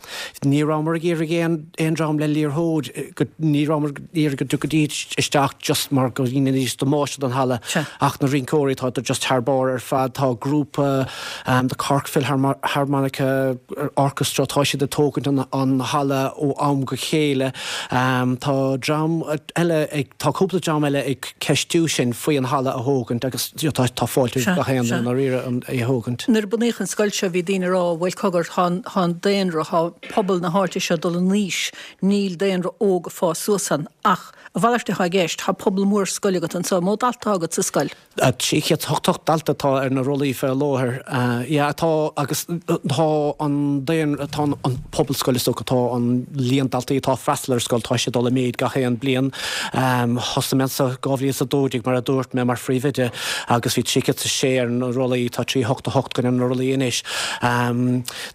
Ní rabhamar ag iarraidh aon aon dream le liathróid, go ní rabhamar ag iarraidh go dtiocfaidís isteach just mar go ndéanfaidís damáiste don halla. Ach na rinceoirí, tá just thar barr ar fad. Tá grúpa The Cork Philharmonica Orchestra, tá siad ag tógaint an halla ó am go chéile. Tá dream eile ag, tá cúpla dream eile ag ceistiú sinn faoi an halla a thógaint agus tá tá fáilte roimh gach aon duine i ndáiríre é a thógaint. Nuair a bunaíodh an scoil seo bhí daoine ag rá bhuel cogar tá an daonra, tá pobal na háite seo ag dul in aois, níl daonra óg ag fás suas ann. Ach a mhalairt atá i gceist, tá pobal mór scoile agat anseo, mó dalta atá agat sa scoil? 388 dalta atá ar na rollaí fé láthair. Yeah, tá agus tá an daonra, tá an pobal scoile is dócha, tá an líon daltaí atá ag freastal ar an scoil, tá sé ag dul i méid gach aon bliain. Thosaigh mé anseo 2012 mar a dúirt mé mar phríomhoide agus bhí 306 ar na rollaí, tá 388 againn ar na rollaí anois.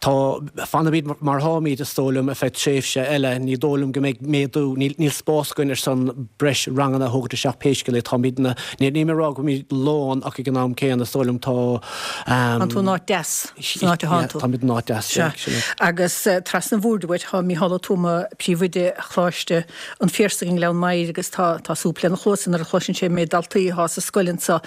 Tá, fanfaimid mar atáimid is dóigh liom ar feadh tréimhse eile, ní dóigh liom go mbeidh méadú, níl níl spás againn ar son breis ranganna a thógaint isteach pé scéal é, táimidne, Níl mé ag rá go bhfuilimid lán ach ag an am céanna is dóigh liom tá. Tánn tú in áit deas, san áit atánn tú. Táimid in áit deas, sea. Agus trasna an bhoird uait tá Mícheál Ó Tuama, príomhoide Choláiste an Phiarsaigh i nGleann Maghair agus tá tá súp lena chluasa nuair a chloiseann sé an méid daltaí atá sa scoil anseo.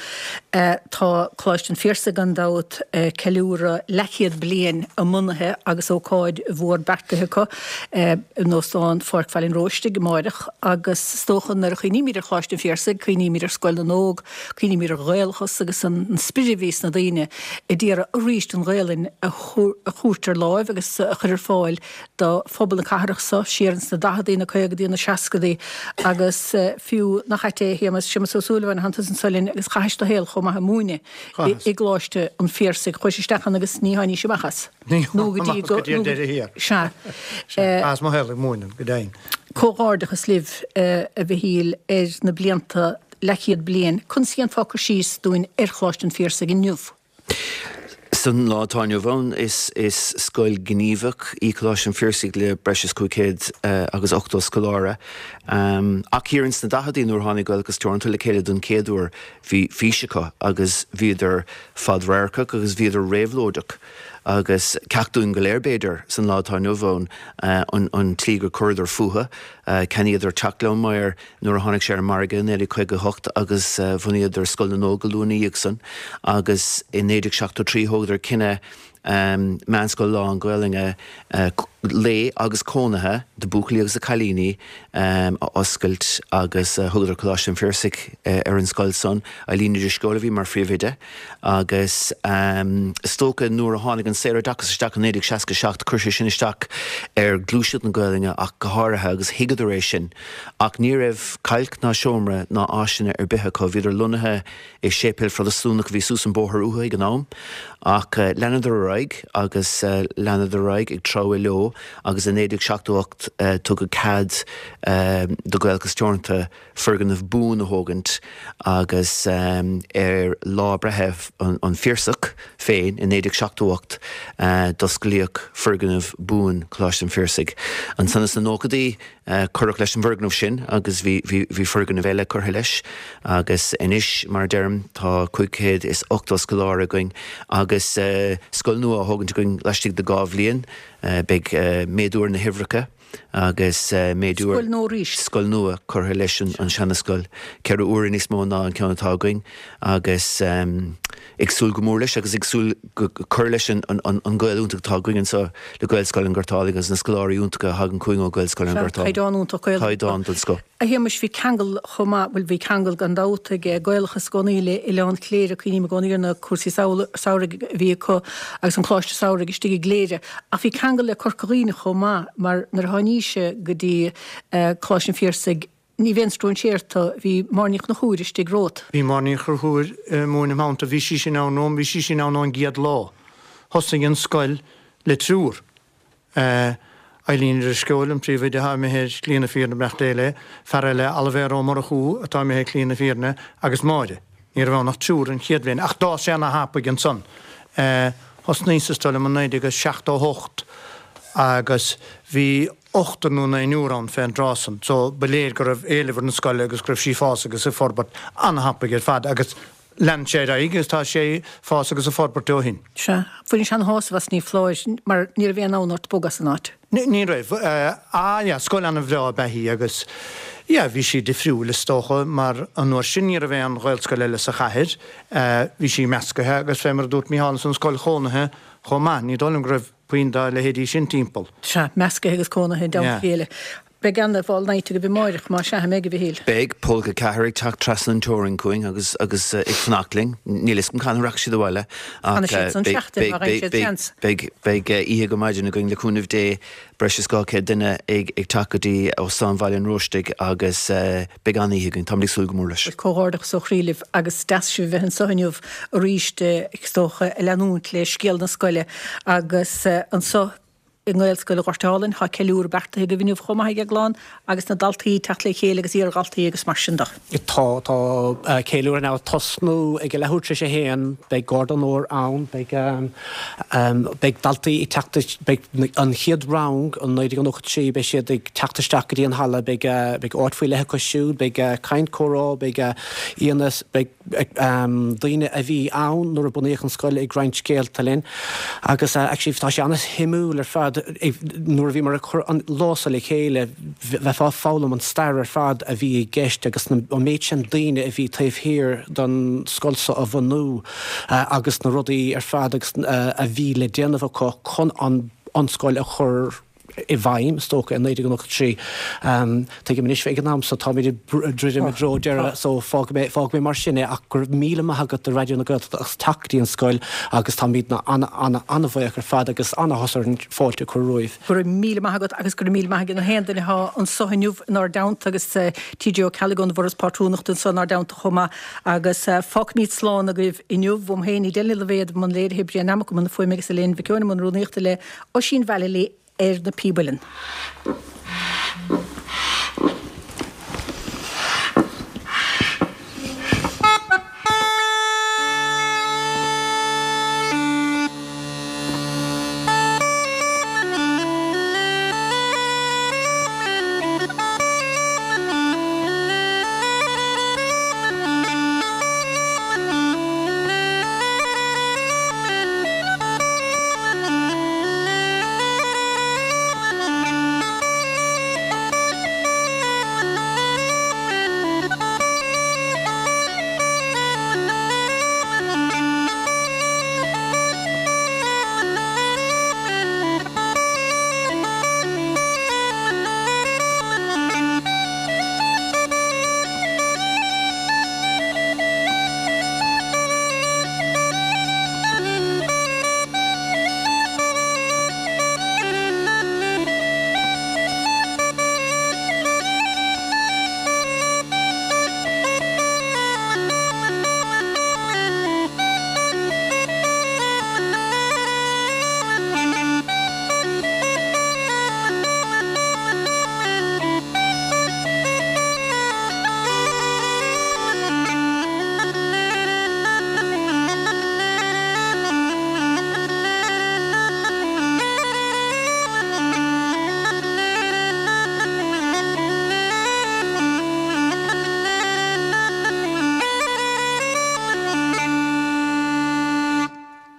Tá Coláiste an Phiarsaigh gan dabht ag ceiliúradh leathchéad bliain a mbunaithe agus ócáid mhór beartaithe acu. in Óstán Pháirc Bhaile an Róistigh amáireach agus is dócha nuair a chuimhnímid ar Choláiste an Phiarsaigh, cuimhnímid ar Scoil na nÓg, cuimhnímid ar Ghaelachas agus an spiorad a bhí sna daoine a d'iarraidh arís an Ghaelainn a thabhairt ar láimh agus a chur ar fáil do phobal na cathrach seo siar ins na daicheadaí, na caogadaí, na seascadaí agus fiú, nach ait é a Shéamais, Séamus Ó Súilleabháin, thánn tusa anso linn agus chaithis do shaol chomh maith ag múineadh i gColáiste an Phiarsaigh, chuais isteach ann agus ní tháinís amach as. Nó go dtí go dtí an deireadh thiar. Sea. Chaitheas mo shaol ag múineadh, go deimhin. Comhghairdeachas libh, a Mhichíl, ar na blianta, leathchéad bliain. Conas a dhéanfá cur síos dúinn ar Choláiste an Phiarsaigh inniu? San lá atá inniu ann, is scoil ghníomhach í Coláiste an Phiarsaigh le breis is 580 scoláire. Ach thiar ins na daicheadaí nuair a tháinig Gaelachas Teoranta le chéile don chéad uair, bhí fís acu agus bhíodar fadradharcach agus bhíodar réabhlóideach. Agus ceacht dúinn go léir, b'fhéidir, san lá atá inniu ann, an tslí gur chuireadar fúthu. Cheannaíodar teach Ghleann Maghair nuair a tháinig sé ar an margadh i 1958 agus bhunaíodar Scoil na nÓg go luath ina dhiaidh san agus i 1973 thógadar cinneadh meánscoil lán-Ghaelainne lae agus cónaithe do buachaillí agus do cailíní a oscailt agus thugadar Coláiste an Phiarsaigh ar an scoil san. Eileen Ní Drisceoil a bhí mar phríomhoide agus is dócha nuair a tháinig an saoroideachas isteach i 1967 chuir sé sin isteach ar ghluaiseacht na Gaelainne ach go háirithe agus thuigeadar é sin ach ní raibh cailc ná seomra ná áiseanna ar bith acu. Bhíodar lonnaithe i séipéal Phrotastúnach a bhí suas an bóthar uathu ag an am ach leanadar ar aghaidh agus leanadar ar aghaidh ag treabhadh leo agus i 1978 tugadh cead do Ghaelachas Teoranta foirgneamh buan a thógaint agus ar lá breithe an Phiarsaigh féin i 1978 d'osclaíodh foirgneamh buan Choláiste an Phiarsaigh. Ansan sna nóchaidí cuireadh leis an bhfoirgneamh sin agus bhí bhí foirgneamh eile curtha leis agus anois mar a deirim tá 580 scoláire againn agus scoil nua á thógaint againn laistigh de 2 bhliain. Beidh méadú ar na huimhreacha agus méadú ar. Scoil nua arís. Scoil nua curtha leis an seana-scoil, 4 huaire níos mó ná an ceann atá againn agus ag súil go mór leis agus ag súil go cur leis an gaol iontach atá againn anseo le Gaelscoil an Ghoirt Álainn agus na scoláirí iontacha a thagann chugainn ó Ghaelscoil an Ghoirt Álainn. Caighdeán iontach Gaeilge. Caighdeán den scoth. A Shéamais, bhí ceangal chomh maith, bhuel bhí ceangal gan dabht ag Gaelachas i gcónaí le Oileán Chléire, cuimhním i gcónaí ar na cúrsaí samhraidh a bhí acu agus an Coláiste Samhraidh istigh i gCléire. Ach bhí ceangal le Corca Dhuibhne chomh maith mar nuair a tháinís go dtí Coláiste an Phiarsaigh, ní bheinn stróinséarta, bhí Máire Ní Chonchúir istigh romhat. Bhí Máire Ní Chonchúir ag múineadh im theannta, bhí sí sin ann romham, bhí sí sin ann ón gcéad lá. Thosaigh an scoil le triúr. Eileen Ní Drisceoil, an príomhoide atá imithe ar shlí na fírinne, beannacht Dé léi, fear eile, Oilibhéar Ó Murchú, atá imithe ar shlí na fírinne, agus Máire. Ní raibh ann ach triúr an chéad bhliain, ach d'fhás sé ana-thapaidh ansan. Thosnaíos is dóigh liom i 1978 agus bhí ochtar nó naonúr ann fén dtráth san, so ba léir go raibh éileamh ar an scoil agus go raibh sí ag fás agus ag forbairt ana-thapaidh ar fad agus Lean sé ar aghaidh agus tá sé ag fás agus ag forbairt ó shin. Sea. Bhainís ana-shásamh as, ní foláir, mar ní raibh aon fhonn ort bogadh as an áit. Ní raibh. Ah yeah, scoil an-bhreá ab ea í agus yeah, bhí sí difriúil is dócha mar an uair sin ní raibh aon Ghaelscoil eile sa chathair. Bhí sí meascaithe agus fé mar a dúirt Mícheál ansan scoil chónaithe chomh maith. Ní dóigh liom go raibh puinn dá leithéidí sin timpeall. Sea, meascaithe agus cónaithe i dteannta a chéile. Beidh ana-bhall night agaibh amáireach, más ea, an mbeidh, a Mhichíl? Beidh, Pólca 4 ag teacht trasna an teorainn chugainn agus agus ag fanacht linn. Níl 'fhios agam cathain a rachaidh siad abhaile ach Fanfaidh siad san seachtain má fhaigheann siad seans. beidh beidh oíche go maidin againn le cúnamh Dé, breis is 200 duine ag ag teacht go dtí Óstán Bhaile an Róistigh agus beidh an-oíche againn, táimid ag súil go mór leis. Bhuel, comhghairdeachas ó chroí libh agus deas sibh a bheith anseo inniu arís, is dócha, ag leanúint le scéal na scoile agus anseo i nGaelscoil Ghort Álainn. Tá ceiliúradh beartaithe agaibh inniu chomh maith ag an gclann agus na daltaí ag teacht le chéile agus iardhaltaí agus mar sin de. Tá, tá ceiliúradh ag tosnú ag a leathuair tar éis a haon, beidh Garda Onóir ann, beidh, beidh daltaí ag teacht, beidh an chéad rang, an 1993, beidh siad ag teacht isteach go dtí an halla, beidh, beidh áit faoi leith acu siúd, beidh caint, comhrá, beidh aíonna, beidh. daoine a bhí ann nuair a bunaíodh an scoil ag roinnt scéalta linn agus actually tá sé an-shuimiúil ar fad nuair a bhíomar ag cur an lá seo le chéile bheifeá ag foghlaim an stair ar fad a bhí i gceist agus an méid sin daoine a bhí taobh thiar den scoil seo a bhunú agus na rudaí ar fad agus a bhí le déanamh acu chun an scoil a chur i bhfeidhm, is dócha, i 1993. Tuigim anois, ag an am so, táimid ag druidim i dtreo deireadh, so fágfaidh mé, fágfaidh mé mar sin é, ach go raibh míle maith agat do Raidió na Gaeltachta as teacht go dtí an scoil agus táimid ana-an-an-bhuíoch ar fad agus an-áthas orainn fáilte a chur romhaibh. Go raibh míle maith agat agus go raibh míle maith ag na haon duine atá anso inniu inár dteannta agus TJ Ó Ceallaigh ón bhForas Pátrúnachta anso inár dteannta chomh maith agus fágfaimid slán agaibh inniu. Uaim féin, Edel Ní Loibhéad i mbun léirithe, Brian Nammock i mbun na fuaime agus Elaine Mhic Eoin i mbun rúnaíochta le Oisín Vallely ar na píb uilleann.